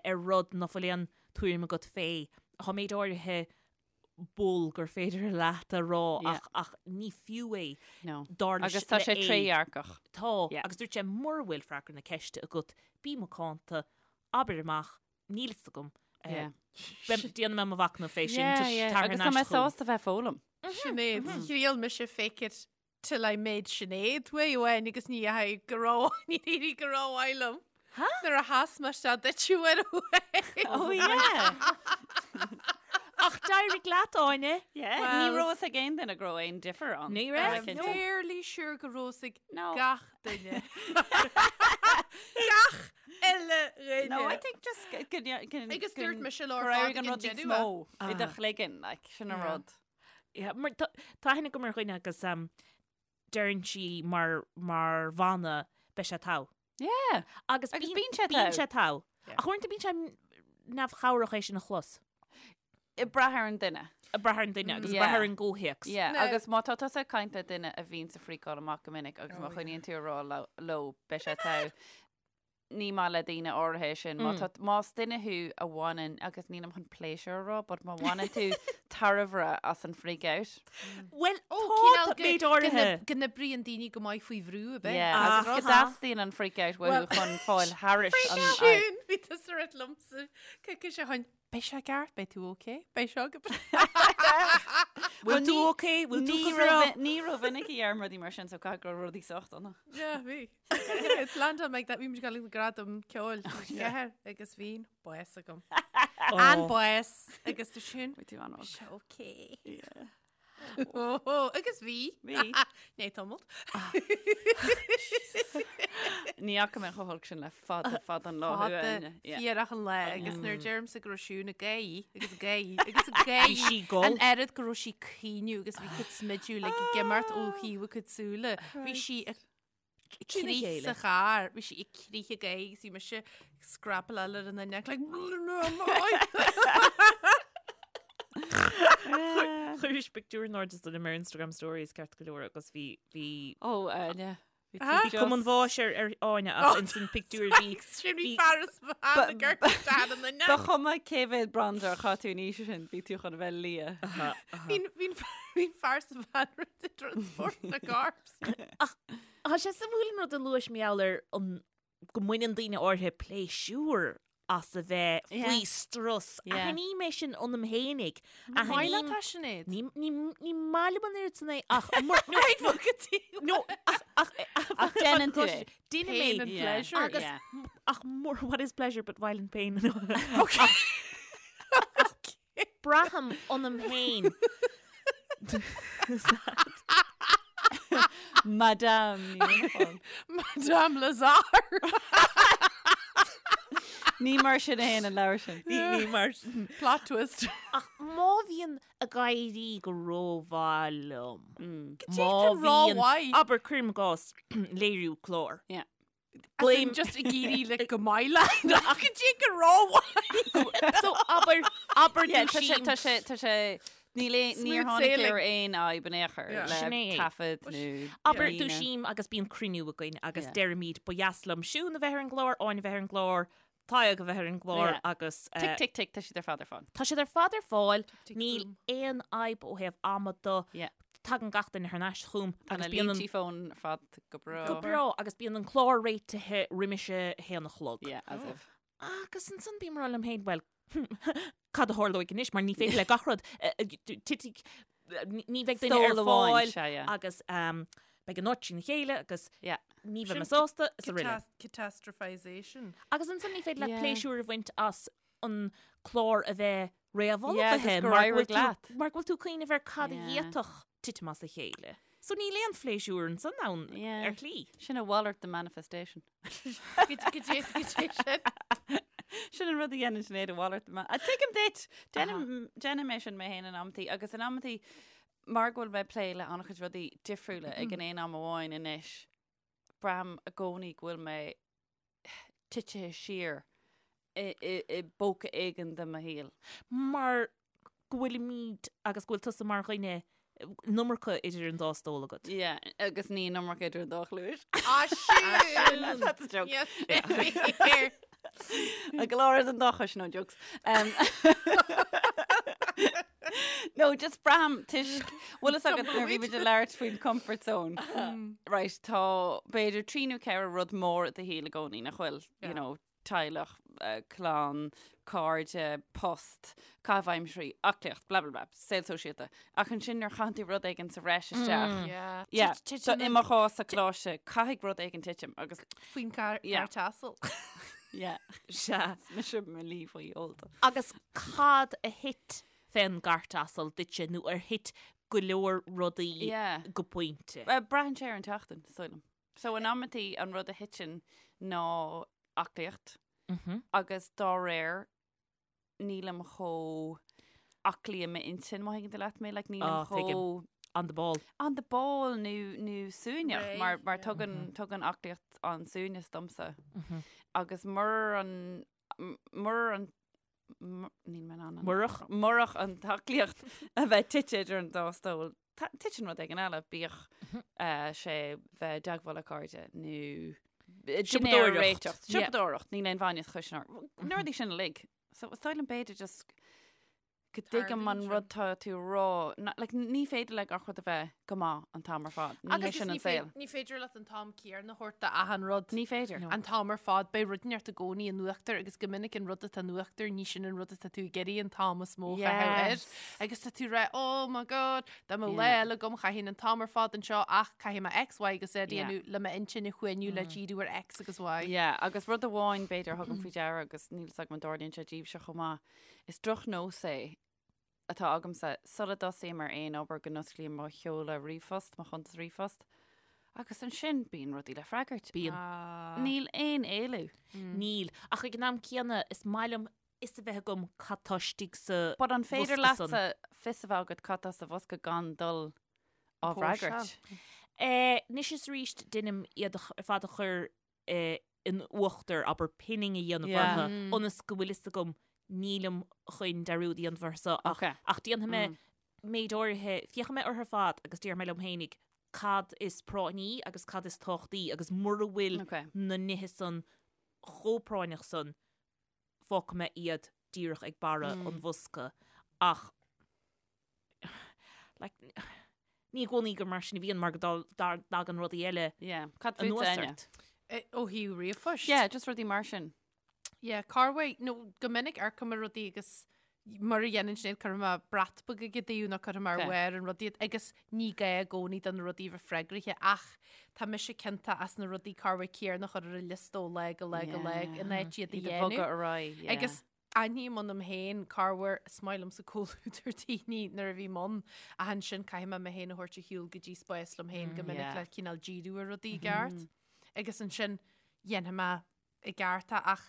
ar rud ná fuil aon tuairim agat fé. Tá méid áirithe bull gur féidir leat a rá ach ach ní fiú é No. dar leis Agus tá le sé A. trédhearcach. Tá, Yeah. agus dúirt sé mura bhfuil freagra na ceiste agat, bí macánta. Abair amach, níl fhios agam. Déanfaidh mé mo mhachnamh fé sin. Agus tá mé sásta bheith ag foghlaim. Sinéad, thriail mise fake it till I made Sinéad uair amháin agus ní dheachaigh go ró ní éirigh go rómhaith liom. Nuair a sheas mé isteach duit uair amháin. Oh yeah! Ach d'éirigh leat, Áine. Yeah. Ní raibh fhios ag aon duine go raibh aon difear ann. Ní raibh. I'm fairly sure go raibh fhios ag gach duine. Gach uile dhuine. No, I think just go Agus dúirt mise leo ar fad éirigh an ag an rud níos deireadh. mó i do chloigeann, like, sin an rud. Yeah, mar tá tá aithne agam ar dhuine agus um, deireann sí mar, mar mhana beidh sé togha. Yeah. Agus, Agus bíonn sé bíonn togha. sé togha. Yeah. Ach uaireanta bíonn sé neamhchabhrach é sin a chlos. Ag brath ar an duine. Ag brath ar an duine agus ag brath Yeah. ar an gcomhthéacs. Yeah, No. agus má tá tusa ag caint le duine a bhíonn ag freakáil amach go minic agus má Oh, yeah. choinníonn tú ag rá leo- leo beidh sé togha, ní maith le daoine áirithe é sin. Má tá, más duine thú a bhaineann, agus nílim chun pléisiúr a rá, but má bhaineann tú tairbhe as an freak out. Bhuel, Ó, tá cineál go- méid go áirithe. n- go n-oibríonn daoine go maith faoi bhrú, ab ea? Yeah, Ah. agus go dteastaíonn an freak out uathu chun fáil thairis an Sin, bhí tusa ag rá liomsa, coicís ó shin, Beidh sé ceart, beidh tú ok, beidh seo go Bhfuil tú ok? Bhfuil tú go breá? Ní rómhinic a dheirim rudaí mar sin, so caithfidh go raibh rudaí sách dona. Yeah, bhí. Landon like that, bhí muid ag dul ag gradam ceoil ceathair agus bhí an bás agam. An bás agus tú sin. Bhí tú an-olc. Sé ok. Yeah. Oh, agus bhí. Bhí. Ní tamalt. Ní fhaca mé chomh holc sin le fada fada an lá Fada Áine. Yeah. fíorach an lá agus nuair deirimse go raibh Siún ag gáirí agus ag gáirí agus ag gáirí Bhí sí gol. an oiread go raibh sí ag caoineadh agus bhí cuid smidiú le ag imeacht ó thaobh a cuid súile. Bhí sí ag Trína crith chéile. sa charr, bhí sí ag crith ag gáirí agus bhí mise ag scrapáil ar an neck like Chuiris pictiúr in airde dom ar Instagram stories ceart go leor agus bhí bhí Ó, Áine. Bhí Ah. tú Bhí cuma an just- bháis ar ar Áine ach ins an pictiúr bhí Sin bhí bhí- fear is bhean ag amharc ar an Ba neck. chuma cé mhéad bronzer a chaith tú an oíche sin, bhí tú chun a bheith liath. Bhí bhí fear sa bhean rud i transport na gcarbs. Tá sé suimiúil an rud a luais mar gheall ar an go mbaineann daoine áirithe pléisiúr as a bheith faoi strus. Aithním é sin ionam fhéinig. Maith leat é, Sinéad? Ní ní maith liom an oiread san é ach nó ach ach Ach déanann tú é. Déanaim Pain é. and pleasure. Agus ach more what is pleasure but violent pain. Braithim ionam féin. Madame Ní Mhuineacháin. Madame Lazare. Ní mar sin a théann an leabhar sin. Ní ní mar sin. Plot twist. Ach má bhíonn ag éirí go rómhaith liom. Má bhíonn, abair cuirim i gcás léiriú clár. Yeah. Blame just ag éirí le go maith leat ach go dtí go rómhaith. So abair abair Yeah, tá sé dúisím. tá sé tá sé níl aon- níor Smooth tháinig sailing. ar aon fhadhb in aon chor Yeah. le Sin é. taifead nó Abair líne. dúisím agus bíonn cruinniú againn agus Yeah. deirimid ba dheas liom Siún a bheith ar an gclár, Áine a bheith ar an gclár, Tadhg a bheith ar an gclár Yeah. agus Tick tick tick tá siad ar fad ar fáil. tá siad ar fad ar fáil, Tick, níl boom. aon fhadhb ó thaobh ama de. Yeah. Tagann gach duine thar n-ais chugam Tá agus na bíonn an línte fóin ar fad go breá. go breá agus bíonn an clár réitithe roimis a haon a chlog. Yeah, as if. Agus ansan bím ag rá liom féin, bhuel, cad a tharlóidh anois mar ní féidir le gach rud titfidh, ní bheidh duine ar Stól amháin, fáil sea, yeah. agus beidh an áit trína chéile agus Yeah. ní bheidh mé Sin sásta is araile. Catastrophization. Agus ansan ní féidir le Yeah. pléisiúr a bhaint as an clár a bheith Yeah, réamhullmhaithe agus gur mar go éirigh bhfuil tú- leat. mar go bhfuil tú ag cuimhneamh ar cad a Yeah. d'fhéadfadh titim as a chéile. So níl aon phléisiúr ansan ann Yeah. ar shlí. Sin a mhalairt de manifestation. Go dtí go dtí sin. Sin an rud a dhéanann Sinéad a mhalairt de man. Tuigim duit! Déanaim déanaim é sin mé féin in amantaí agus in amantaí mar go bhfuil mé ag plé le an-chuid rudaí difriúla ag an aon am amháin anois, braithim i gcónaí go bhfuil mé titithe siar i i i bpóca éigin de mo shaol. Mar go bhfuilimid agus go bhfuil tusa mar dhuine an iomarca idir an dá stól agat. Yeah, agus ní an iomarca idir an dá chluais. Ah, sin! That's a joke. Yes. A go leor den dá chois, no jokes. Um, no, just braithim toisc bhfuil fhios agat nuair a bhí muid ag labhairt faoin comfort zone. Right, tá b'fhéidir trí nó ceithre rud mór i do shaol i gcónaí nach bhfuil, you know, teaghlach, clann, cairde, post, caitheamh aimsirí, aclaíocht, blah blah blah, saol sóisialta. Ach ansin nuair a chaitheann tú rud éigin sa bhreis isteach, Yeah. yeah, Tit- so titeann i an- mo chás sa choláiste, caithfidh rud éigin titim agus Faoin gcairt Yeah. asail. yeah, Sea. is mise mo luí faoi ólta. Agus cad a thit fén gcairt asail duitse nó ar thit go leor rudaí Yeah. go pointe? Well, braitheann sé ar an tseachtain, is dóigh liom. So in amantaí an rud a thiteann ná aclaíocht agus dá réir nílim chomh aclaí i m'intinn má thuigeann tú leat mé, like nílim Ah, tuigim. chomh On the ball. on the ball nó nó suaimhneach Réidh, mar mar yeah. tugann tugann aclaíocht an suaimhneas domsa. Agus murar an murar an níl mé in ann an- Murach? murach an t-aclaíocht a bheith tite idir an dá stól, titeann rud éigin eile, bíodh sé bheith i dteagmháil le cairde nó dinnéar a Siopadóireacht. réiteach. Siopadóireacht, níl aon bhainne chuis ná na rudaí sin uilig. So is dóigh liom b'fhéidir just go dtuigim an Tarlaíonn rud tá tú a rá. Na- Like, ní féidir le gach rud a bheith go maith an t-am ar fad. Ní hé Agus sin ní an saol. ní féidir leat an t-am céanna a thabhairt d'achan rud. Ní féidir. An t-am ar fad, beidh rud inteacht i gcónaí in uachtar agus go minic an rud atá in uachtar, ní sin an rud atá tú ag iarraidh an t-am is mó a chaitheamh air. Yes. Agus tá tú rá, oh my god, dá mbeadh lá Yeah. eile agam chaithfinn an t-am ar fad anseo ach caithfidh mé X, Y agus Z a Yeah. dhéanamh le m'intinn a shuaimhniú le díriú ar X agus Y. Yeah, agus rud amháin b'fhéidir a thugaim faoi deara agus níl 's agam an dtarlaíonn sé daoibhse chomh maith, Is drochnós é atá agamsa, sula dtosaím ar aon obair go n-osclaím mo sheoladh ríomhphost, mo chuntas ríomhphost, agus ansin bíonn rudaí le freagairt. Bíonn. Níl aon éalú. Níl. Ach ag an am céanna, is maith liom fhios a bheith agam cad tá istigh sa But an féidir bhosca san. leatsa fios a bheith agat cad tá sa bhosca gan dul á bhfreagairt? Eh, anois is arís deinim iad ar fad a chur in uachtar, abair, pinning a dhéanamh Yeah. orthu, ionas go bhfuil fhios agam nílim chun dearúd a dhéanamh orthu so, ach, Okay. ach déanfaidh mé méid áirithe, féachfaidh mé orthu ar fad agus déarfaidh mé liom fhéinig cad is práinní agus cad is tábhachtaí agus mura bhfuil Okay. na nithe san chomh práinneach san, fágfaidh mé iad díreach ag barra an bhosca. Ach like, ní i gcónaí gur mar sin a bhíonn mar go dtagann rudaí eile Yeah. Cad fút anuas Áine? ort. Eh, Ó thaobh ríomhphoist? Yeah, just rudaí mar sin. Yeah, corruair, nó go minic amharcaim ar rudaí agus mar a dhéanann Sinéad cuirfidh mé brat beag ag an dtaobh nó cuirfidh mé ar Okay. bharr an rudaí iad agus ní gá i gcónaí do na rudaí a bheith freagraithe ach tá mise ciontach as na rudaí corruair céanna a chur ar an liosta ó lá go lá go lá in áit iad a Iad a dhéanamh. bhogadh ar aghaidh, yeah. Agus aithním ionam féin corruair is maith liomsa comhluadar daoine nuair a bhím ann ach ansin caithfidh mé mé féin a thabhairt ar shiúl go dtí spás liom féin go minic Yeah. le cineál díriú ar rudaí i gceart. Agus ansin dhéanfaidh mé i gceart é ach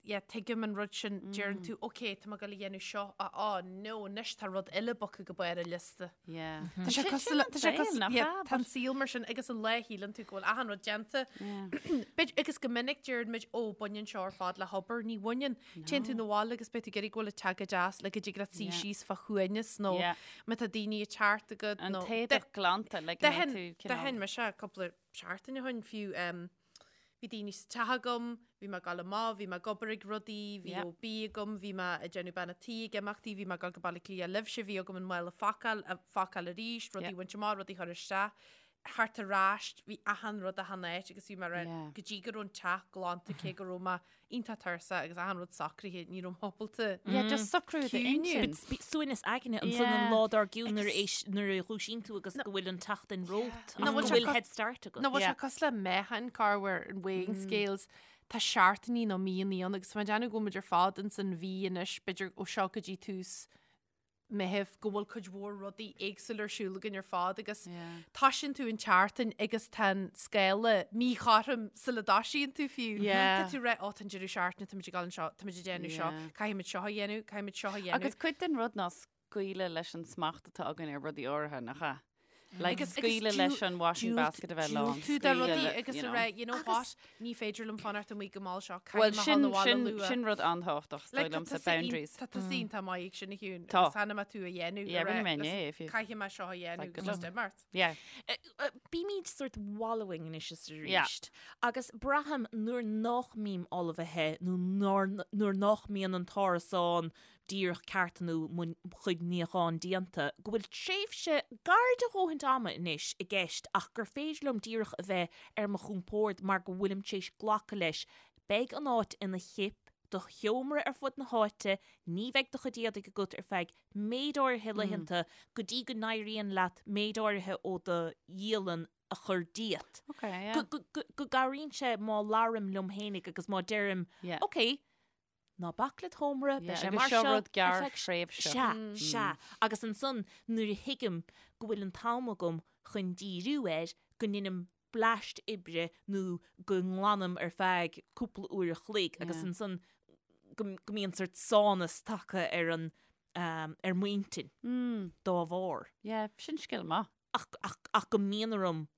yeah, tuigim an rud sin, deireann tú, ok, tá mé ag dul a dhéanamh seo, ah, oh, no, anois tá rud eile bogtha go barr an liosta. Yeah. Tá sé Sin- cosúil sin le- an tá sé saol, cosúil- nach yeah, ea? tá an saol mar sin agus an lá a shíleann tú go bhfuil achan rud déanta. Yeah. B'fhéidir- agus go minic deireann muid, ó, baineann seo ar fad le hobair, ní bhaineann. Téann tú 'na bhaile agus beidh tú ag iarraidh go bhfuil an teach go deas le go dtig leat suí Yeah. síos fá shuaimhneas nó Yeah. má tá daoine ag teacht agat An nó- t-éadach glanta, like, go mbeidh tú cineál- D'aithin mise cúpla seachtain ó shin fiú, em, Bhí daoine sa teach agam, bhí mé ag dul amach, bhí mé ag obair ag rudaí, bhí Yeah. OB agam, bhí mé ag déanamh bean a' tí ag imeachtaí, bhí mé ag dul go Baile Átha Cliath libhse, bhí agam an mála a phacáil, a phacáil arís, rudaí Yeah. a bhaint amach, rudaí a chur isteach, thart ar ais, bhí achan rud achan áit agus bhí mé Yeah. go dtí go raibh an teach glanta cé go raibh mé iontach tuirseach agus achan rud socraithe, ní raibh mé ábalta. Yeah, just socrú Ciúine. d'intinn. Suaimhneas aigne ansan an Yeah. lá dár gcionn nuair a éis- nuair a dhúisíonn tú agus go bhfuil an tseachtain romhat Nó ach go bhfuil sé bhfuil co- head start agat. Nó bhfuil sé Yeah. cosúil le meáchain corruair an weighing scales, tá seachtainí nó míonna ann agus tá mé ag déanamh go bhfuil muid ar fad ins an mhí anois, b'fhéidir ó seo go dtí tús Meitheamh, go bhfuil cuid mhór rudaí éagsúla ar siúl againn ar fad agus toisíonn tú an tseachtain agus tá an scála míchothrom sula dtoisíonn tú fiú. Yeah. Tá tú rá, ó, tá an deireadh seachtaine, táimid ag dul anseo, táimid ag déanamh seo, Yeah. caithfimid seo a dhéanamh, caithfimid seo a dhéanamh. Agus cuid den rud ná scaoileadh leis an smacht atá againn ar rudaí áirithe, nach ea? Like, Agus- agus scaoileadh leis an washing basket a bheith lán. Diúltú do rudaí scaoileadh, agus you a know. rá, you know what, ní féidir liom fanacht amuigh go mall seo, Well, caithfidh mé sin, dhul abhaile sin, luath. sin rud an-tábhachtach, is dóigh Like, tá liomsa, tusa iontach- boundaries. Tá tusa iontach maith ag sin a Shiún. Tá. Agus cheana mé tú a dhéanamh. Yeah, a rá, rinne mé listen, inné, if you- Caithfidh mé seo a dhéanamh Like, agus good just imeacht. Yeah. Bímid sort wallowing anois is Yeah. arís. Agus braithim nuair nach mbím ullmhaithe nó nuair nuair nach mbíonn an t-árasán díreach ceart nó mo chuid níocháin déanta, go bhfuil tréimhse gar do dhóthaint ama anois i gceist ach gur féidir liom díreach a bheith ar mo chompord mar go bhfuilim tar éis glacadh leis. Beidh an áit ina chip, do sheomra ar fud na háite, ní bheidh do chuid éadaigh agat ar feadh méid áirithe laethanta go dtí go n-éiríonn leat méid áirithe ó do dhialann a chur díot. Okay, yeah. Go, go, go, go gcabhraíonn sé má labhraím liom fhéinig agus má deirim, Yeah. ok, ná bac le do sheomra, beidh Yeah, sé agus mar seo seo rud ar gearr feadh thréimhse. Sea, sea. Agus ansan nuair a thuigim go bhfuil an t-am agam chun díriú air, go ndeinim bleaist oibre nó go nglanaim ar feadh cúpla uair a chloig agus ansan go mbíonn sort sánas tagtha ar an ar m'intinn dá bharr. Yeah, sin scil maith. Ach, ach, ach go mbíonn orm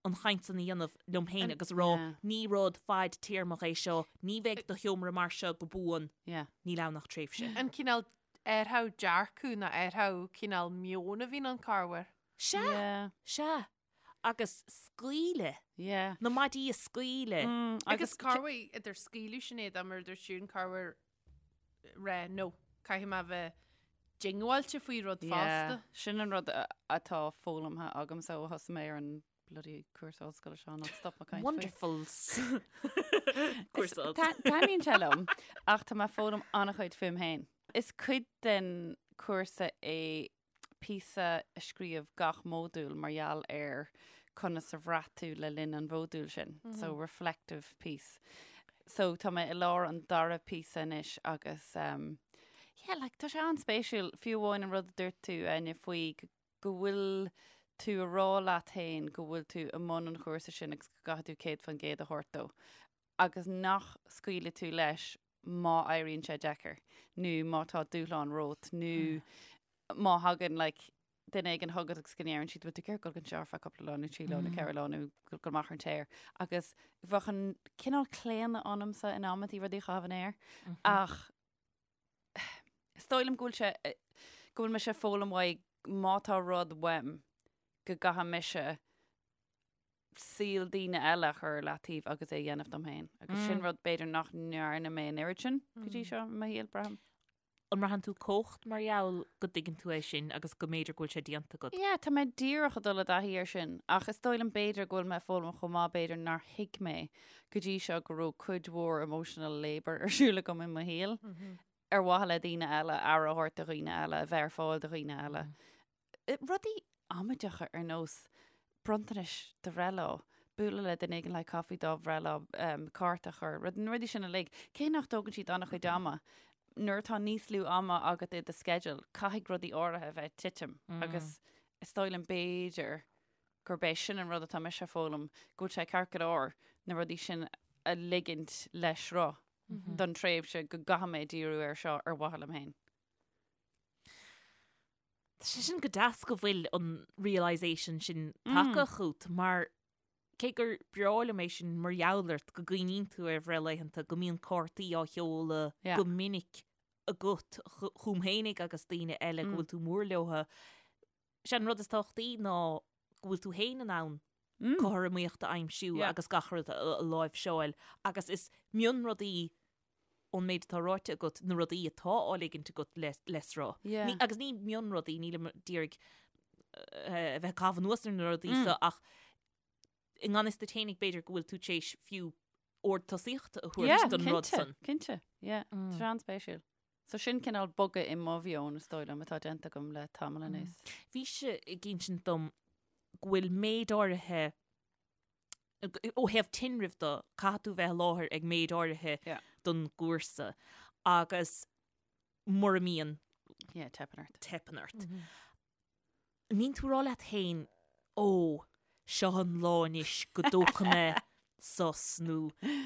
an chaint san a dhéanamh liom féin agus a rá ní rud fadtéarmach é seo, ní bheidh do sheomra mar seo go buan, níl ann ach tréimhse. An cineál athrú dearcadh nó athrú cineál meoin a bhíonn ann corruair. Sea, sea. Agus scaoileadh. Yeah. Na maidí a scaoileadh. Agus corruair idir scaoileadh Sinéad mar a dúirt Siún corruair rá no, caithfidh mé a bheith diongbháilte faoi rud fosta. Sin an rud atá foghlamtha agamsa ó thosaigh mé ar an bloody cúrsa ollscoile seo nach stop mé caint faoi. Wonderful. Cúrsa ollscoile. Taitníonn sé liom ach tá mé ag foghlaim an-chuid fúm féin. Is cuid den chúrsa é píosa a scríobh gach módúl mar gheall ar conas a bhraith tú le linn an mhódúil sin. So reflective piece. So tá mé i lár an dara píosa anois agus um, yeah, like, tá sé an-spéisiúil fiú amháin an rud a dúirt tú Áine faoi go bhfuil tú a rá leat féin go bhfuil tú i mbun an chúrsa sin agus go gcaithfidh tú 100% a thabhairt dó agus nach scaoilfidh tú leis má éiríonn sé deacair nó má tá dúshlán romhat nó má thagann like, duine éigin chugat agus go ndeireann siad bhfuil tú ag iarraidh dul anseo ar feadh cúpla lá nó trí lá nó ceithre lá nó dul amach ar an t-aer agus bheadh an cineál claonadh ionamsa in amantaí rudaí a chaitheamh in aer ach is dóigh liom go bhfuil sé go bhfuil mise ag foghlaim uaidh má tá rud uaim go gcaithfidh mise saol daoine eile a chur ar leataobh agus é a dhéanamh dom féin. Agus sin rud b'fhéidir nach ndearna mé an oiread sin go dtí seo i mo shaol, braithim. An mbraitheann tú cumhacht mar gheall go dtuigeann tú é sin agus go mb'fhéidir go bhfuil sé déanta agat? Yeah, tá mé díreach ag dul i dtaithí air sin, ach is dóigh liom b'fhéidir go bhfuil mé ag foghlaim chomh maith b'fhéidir nár thuig mé go dtí seo go raibh cuid mhór emotional labour ar siúl agam i mo shaol ar mhaithe le daoine eile, aire a thabhairt do dhaoine eile, a bheith ar fáil do dhaoine eile. Rudaí amaideacha ar nós bronntanais do bhreithlá, bualadh le duine éigin le caife dá bhreithlá, cárta a chur, rud, na rudaí sin uilig. Cé nach dtógann siad an-chuid ama, nuair atá níos lú ama agat i do sceideal, caithfidh rudaí áirithe a bheith ag titim agus is dóigh liom b'fhéidir gurb é sin an rud atá mise a foghlaim, go bhfuil sé ceart go leor na rudaí sin a ligint le sruth don tréimhse go gcaithfidh mé díriú air seo ar mhaithe liom féin. Tá sé sin go deas go bhfuil an realisation sin tagtha chugat mar cé gur breá liom é sin mar gheall ort go gcuimhníonn tú ar bhreithlaethanta, go mbíonn cártaí á sheoladh go minic agat chugam fhéinig agus daoine eile go bhfuil tú mór leotha. Sé an rud is tábhachtaí ná go bhfuil tú féin in ann cothromaíocht a aimsiú agus gach rud a láimhseáil agus is mionrudaí ón méid atá ráite agat, na rudaí atá á ligint agat le sruth. Yeah. Agus ní mionrudaí, nílim d'iarraidh a bheith ag caitheamh anuas ar na rudaí so ach i ngan fhios duit fhéinig b'fhéidir go bhfuil tú tar éis fiú ord tosaíochta a thabhairt don rud san. Cinnte, yeah. Tá sé an-spéisiúil. So sin cineál bogadh i mo mheon is dóigh liom atá déanta agam le tamall anuas. Bhís-se ag insint dom go bhfuil méid áirithe ó thaobh tinrimh de, caithfidh tú bheith i láthair ag méid áirithe don gcúrsa agus mura mbíonn, Yeah, teipeann ort. teipeann ort. An mbíonn tú ag rá leat féin, ó, seo an lá anois go dtógfaidh mé sos nó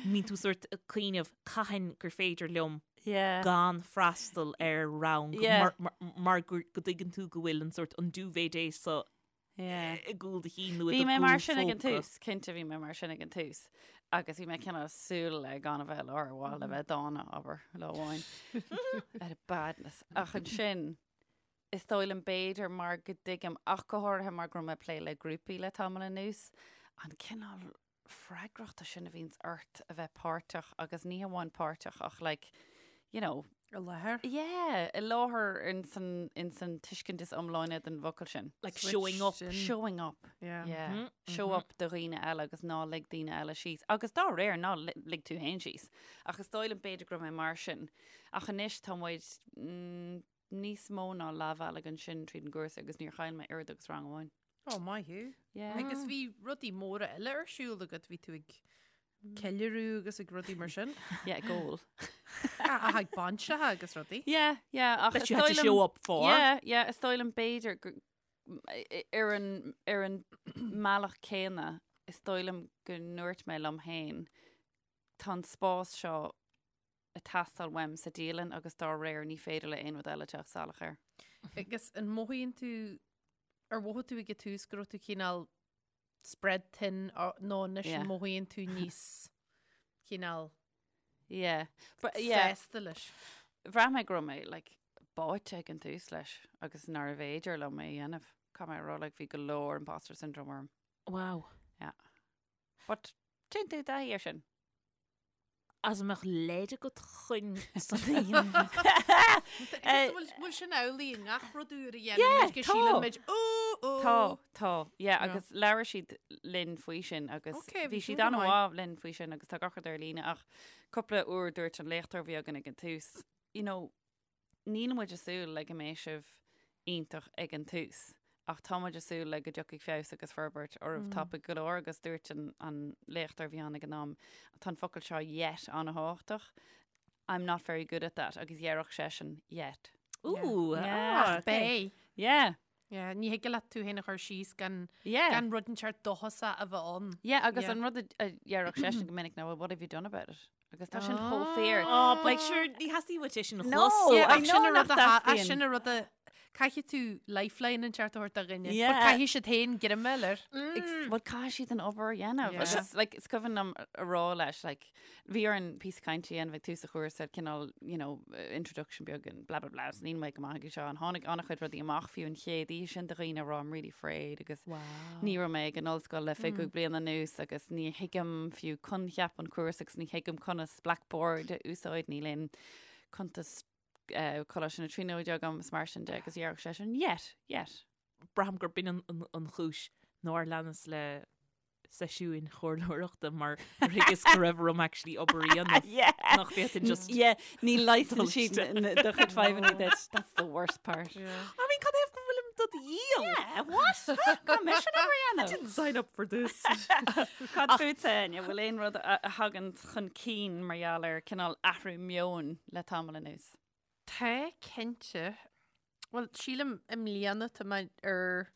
mbíonn tú sort ag cuimhneamh cathain gur féidir liom gan freastal ar rang mar go dtuigeann tú go bhfuil an sort an duvet day so i gcúl do chinn nó i do Bhí mé mar sin ag an chúl phóca. tús, cinnte bhí mé mar sin ag an tús. Agus bhí mé cineál súil le gan a bheith i láthair ar mhaithe le bheith dána, abair, lá amháin. Out of badness. Ach ansin, is dóigh liom b'fhéidir mar go dtuigim, ach go háirithe mar go raibh mé ag plé le grúpaí le tamall anuas, an cineál freagrachta sin a bhíonns ort a bheith páirteach agus ní hamháin páirteach ach like, you know, I láthair? Yeah, i láthair in san, in san tuiscint is iomláine den bhfocal sin. Like showing up. Switched in. Showing up. Yeah. Yeah. Mhm, Show up do dhaoine eile agus ná lig daoine eile síos. Agus dá réir ná li- lig tú féin síos. Ach is dóigh liom b'fhéidir go raibh mé mar sin. Ach anois tá muid mm, níos mó ná leathbhealaigh ansin tríd an gcúrsa agus níor chaill mé oiread agus rang amháin. Ó, maith thú. Yeah. Agus bhí rudaí móra eile ar siúl agat, bhí tú ag ceiliúradh agus ag rudaí mar sin. Yeah, ag ól. Ach ag bainseacha agus rudaí. Yeah, yeah, ach That is you had dóigh to liom- show up for. Yeah, yeah, is dóigh liom b'fhéidir gur- ar an, ar an mbealach céanna, is dóigh liom go ndúirt mé liom féin, tá an spás seo ag teastáil uaim sa dialann agus dá réir ní féidir le aon rud eile teacht salach air. Agus an mothaíonn tú, ar mhothaigh tú ag an tús go raibh tú cineál spread thin nó anois Yeah. an mothaíonn tú níos cineál Yeah. But, yeah. sásta leis? Bhraith mé go raibh mé like, báite ag an tús leis agus nárbh fhéidir liom é a dhéanamh. Caithfidh mé a rá like, bhí go leor imposter syndrome orm. Wow. Yeah. But téann tú i dtaithí air sin. As an mbeadh leid agat chun san a dhéanamh? Bhfuil sin amhlaidh i ngach rud úr a dhéanann muid go síleann muid ó ó. Tá, tá, yeah, agus labhair siad linn faoi sin agus bhí siad an-mhaith linn faoi sin agus tá gach rud ar líne ach cúpla uair dúirt an léachtóir a bhí againn ag an tús, you know, Níl muid ag súil le go mbeidh sibh iontach ag an tús, ach tá muid ag súil le go dtiocfaidh feabhas agus forbairt oraibh tapaidh go leor agus dúirt an an léachtóir a bhí ann ag an am, tá an focal seo yet an-thábhachtach, I'm not very good at that agus déarfadh seisean yet. Ooh, Yeah. ah, Ach beidh. Yeah. Yeah, ní thig leat tú féin a chur síos gan Yeah. gan rud inteacht dóchasach a bheith ann. Yeah, agus Yeah. an rud a a dhéarfadh seisean go minic ná, well, what have you done about it? Agus tá sin chomh fíor. Oh, but sure, ní theastaíonn uait é sin a No, chlos. Yeah, I ach know sin a nach rud a tha- ach dteastaíonn. sin a rud a caithfidh tú lifeline inteacht a thabhairt do dhuine. But Yeah. caithfidh siad féin greim air. Well, caithfidh siad an obair a dhéanamh. Yeah. Agus, like, is cuimhin liom a rá leis, like, bhí orainn píosa cainte a dhéanamh ag tús an chúrsa, cineál, you know, introduction beag and blah blah blah, is níl mé go maith ag seo, and tháinig an-chuid rudaí amach fiú an chéad oíche sin de dhaoine a rá I'm really afraid agus ní raibh mé ag an ollscoil le 25 bliain anuas agus ní thuigim fiú coincheap an chúrsa agus ní thuigim conas Blackboard a úsáid, níl aon cuntas eh, Coláiste na Tríonóide agam is mar sin de agus dhéarfadh seisean yet, yet. Braithim gurb in an, an, an chúis nár leanas le seisiúin chomhairleoireachta mar thuigeas go raibh orm actually obair a dhéanamh Yeah. nach bhféadfainn just Yeah, ní leigheasann dul siad isteach. na- do chuid fadhbanna duit. That's the worst part. I mean, cad é go bhfuilim do dhíol? Yeah, what? Caithfidh mise an obair a dhéanamh. Didn't sign up for this. Cad fútsa, Áine, bhfuil aon rud a a thagann chun cinn mar gheall ar cineál athrú meoin le tamall anuas? Tá, cinnte. Bhuel, sílim i mbliana tá mé ar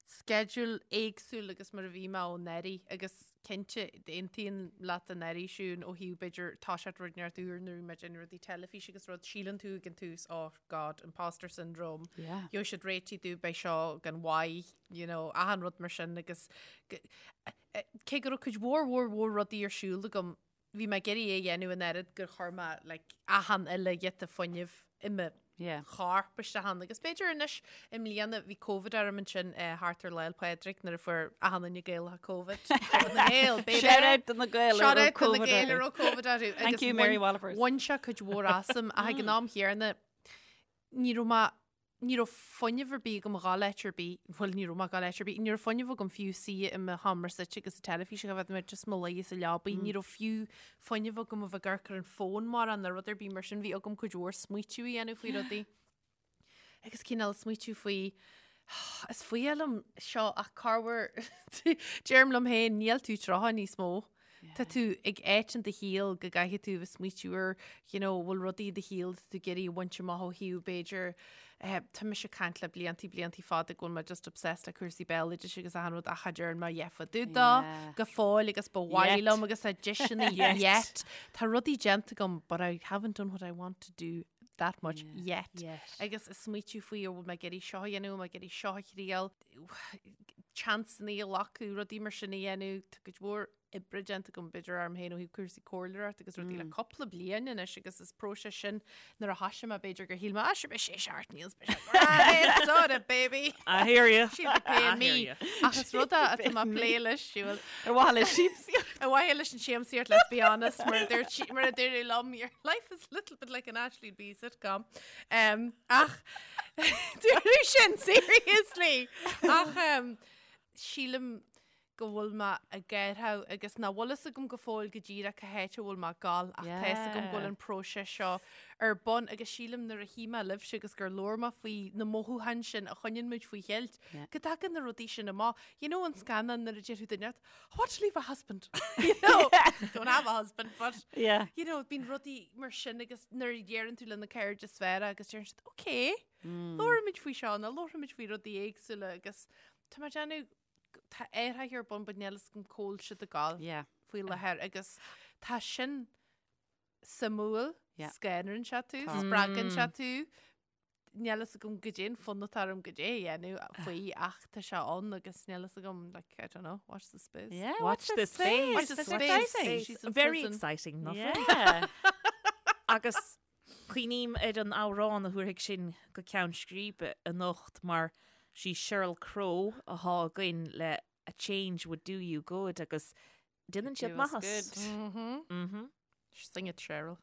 sceideal éagsúil agus mar a bhí mé anuraidh agus cinnte aontaím leat anuraidh Siún ó thaobh b'fhéidir toiseacht rud inteacht úr nuair a bhí mé ag déanamh rudaí teilifíse agus rud síleann tú ag an tús oh God imposter syndrome Yeah. gheobhaidh siad réitithe domh beidh seo gan mhaith you know achan rud mar sin agus cé go raibh cuid mhór mhór mhór rudaí ar siúl agam bhí mé ag iarraidh é a dhéanamh an oiread gur chuir mé like, achan uile ghiota fuinnimh i mo Yeah. chorp isteach ann. Agus b'fhéidir anois i mbliana bhí Covid orm ansin eh, thart ar Lá 'le Pádraig nuair a fuair achan duine Gaelach Covid. Covid na nGael, baby! Shout out do na Gaeil a Shout raibh out do na Covid Gaeil a orthu. raibh Covid orthu. Thank Agus you, Mary bhain- Wallopers. Bhain sé cuid mhór asam ach ag an am chéanna ní raibh mé Ní raibh fuinneamh ar bith agam a ghabháil áit ar bith, bhuel ní raibh mé ag gabháil áit ar bith, ní raibh fuinneamh agam fiú suí i mo sheomra suite agus an teilifís a bheith mé just mo luí sa leabaidh, ní raibh fiú fuinneamh agam a bheith ag amharc ar an fón mórán nó rud ar bith mar sin, bhí agam cuid mhór smaoitiú a dhéanamh faoi rudaí. Agus cineál smaoitiú faoi, is fuath liom seo ach corruair deirim liom féin níl tú 30 níos mó. Tá tú ag áit in do shaol go gcaithfidh tú a bheith smaoitiú ar, you know, bhfuil rudaí i do shaol atá tú ag iarraidh a bhaint amach ó thaobh b'fhéidir, eh, tá mise ag caint le bliantaí, bliantaí fada go bhfuil mé just obsessed le cúrsaí béaloidis agus achan rud ach cha dtearn mé a dhath fá dtaobh dó Yeah. go fóill agus ba mhaith Yet. liom agus tá deiseanna Yet. yet. Tá rudaí déanta agam but I haven't done what I want to do that much yet. Yet. Agus ag smaoitiú faoi an bhfuil mé ag iarraidh seo a dhéanamh, an bhfuil mé ag iarraidh seo a thriail, seansanna a ghlacadh, rudaí mar sin a dhéanamh, tá cuid mhór oibre déanta agam b'fhéidir orm féin ó thaobh cúrsaí comhairleoireachta agus rudaí le cúpla bliain anois agus is próiseas sin nuair a thoisigh mé b'fhéidir gur shíl mé ah sure beidh sé seart níl beidh sé grand sorted baby I hear you. She'll be paying I me hear you. ach is rud é atá mé ag plé leis siúil Ar mhaithe le siamsaíocht. Ar mhaithe leis an siamsaíocht, let's be honest, mar a dúirt sí- mar a dúradh liom, your life is a little bit like an Aisling Bea sitcom. Um, ach dúradh sin seriously. Ach um, sílim go bhfuil mé ag athrú agus nach bhfuil fhios agam go fóill go díreach cá háit a bhfuil mé ag gabháil ach tá fhios agam go bhfuil an próiseas seo ar bun agus sílim nuair a shuigh mé libhse agus gur labhair mé faoi na mothúcháin sin a choinníonn muid faoi cheilt, go dtagann na rudaí sin amach. You know an scannán nuair a deir duine leat, I want to leave my husband. You know, don't have a husband, but Yeah. you know, bíonn rudaí mar sin agus nuair a deireann tú le na cairde is fearr agus deireann siad, okay, labhraímid faoi seo nó labhraímid faoi rudaí éagsúla agus tá mé ag déanamh tá athruithe ar bun but níl fhios agam cá bhfuil siad ag gabháil Yeah. faoi láthair agus tá sin suimiúil, Yeah. scanraíonn sé tú, Tá. spreagann sé tú, níl fhios agam goidé an fonn atá orm goidé a dhéanamh faoi ach tá sé ann agus níl fhios agam like, I don't know, watch the space. Yeah, Watch the space. Watch the That's space. exciting. She's in Very prison. exciting, not Yeah. Agus cuimhním ar an amhrán a thabharfaidh sinn go ceann scríbe anocht mar sí Sheryl Crow atá againn le A Change Would Do You Good agus déanann siad Do us maitheas. good. Mhm. Mhm. Sing it, Sheryl.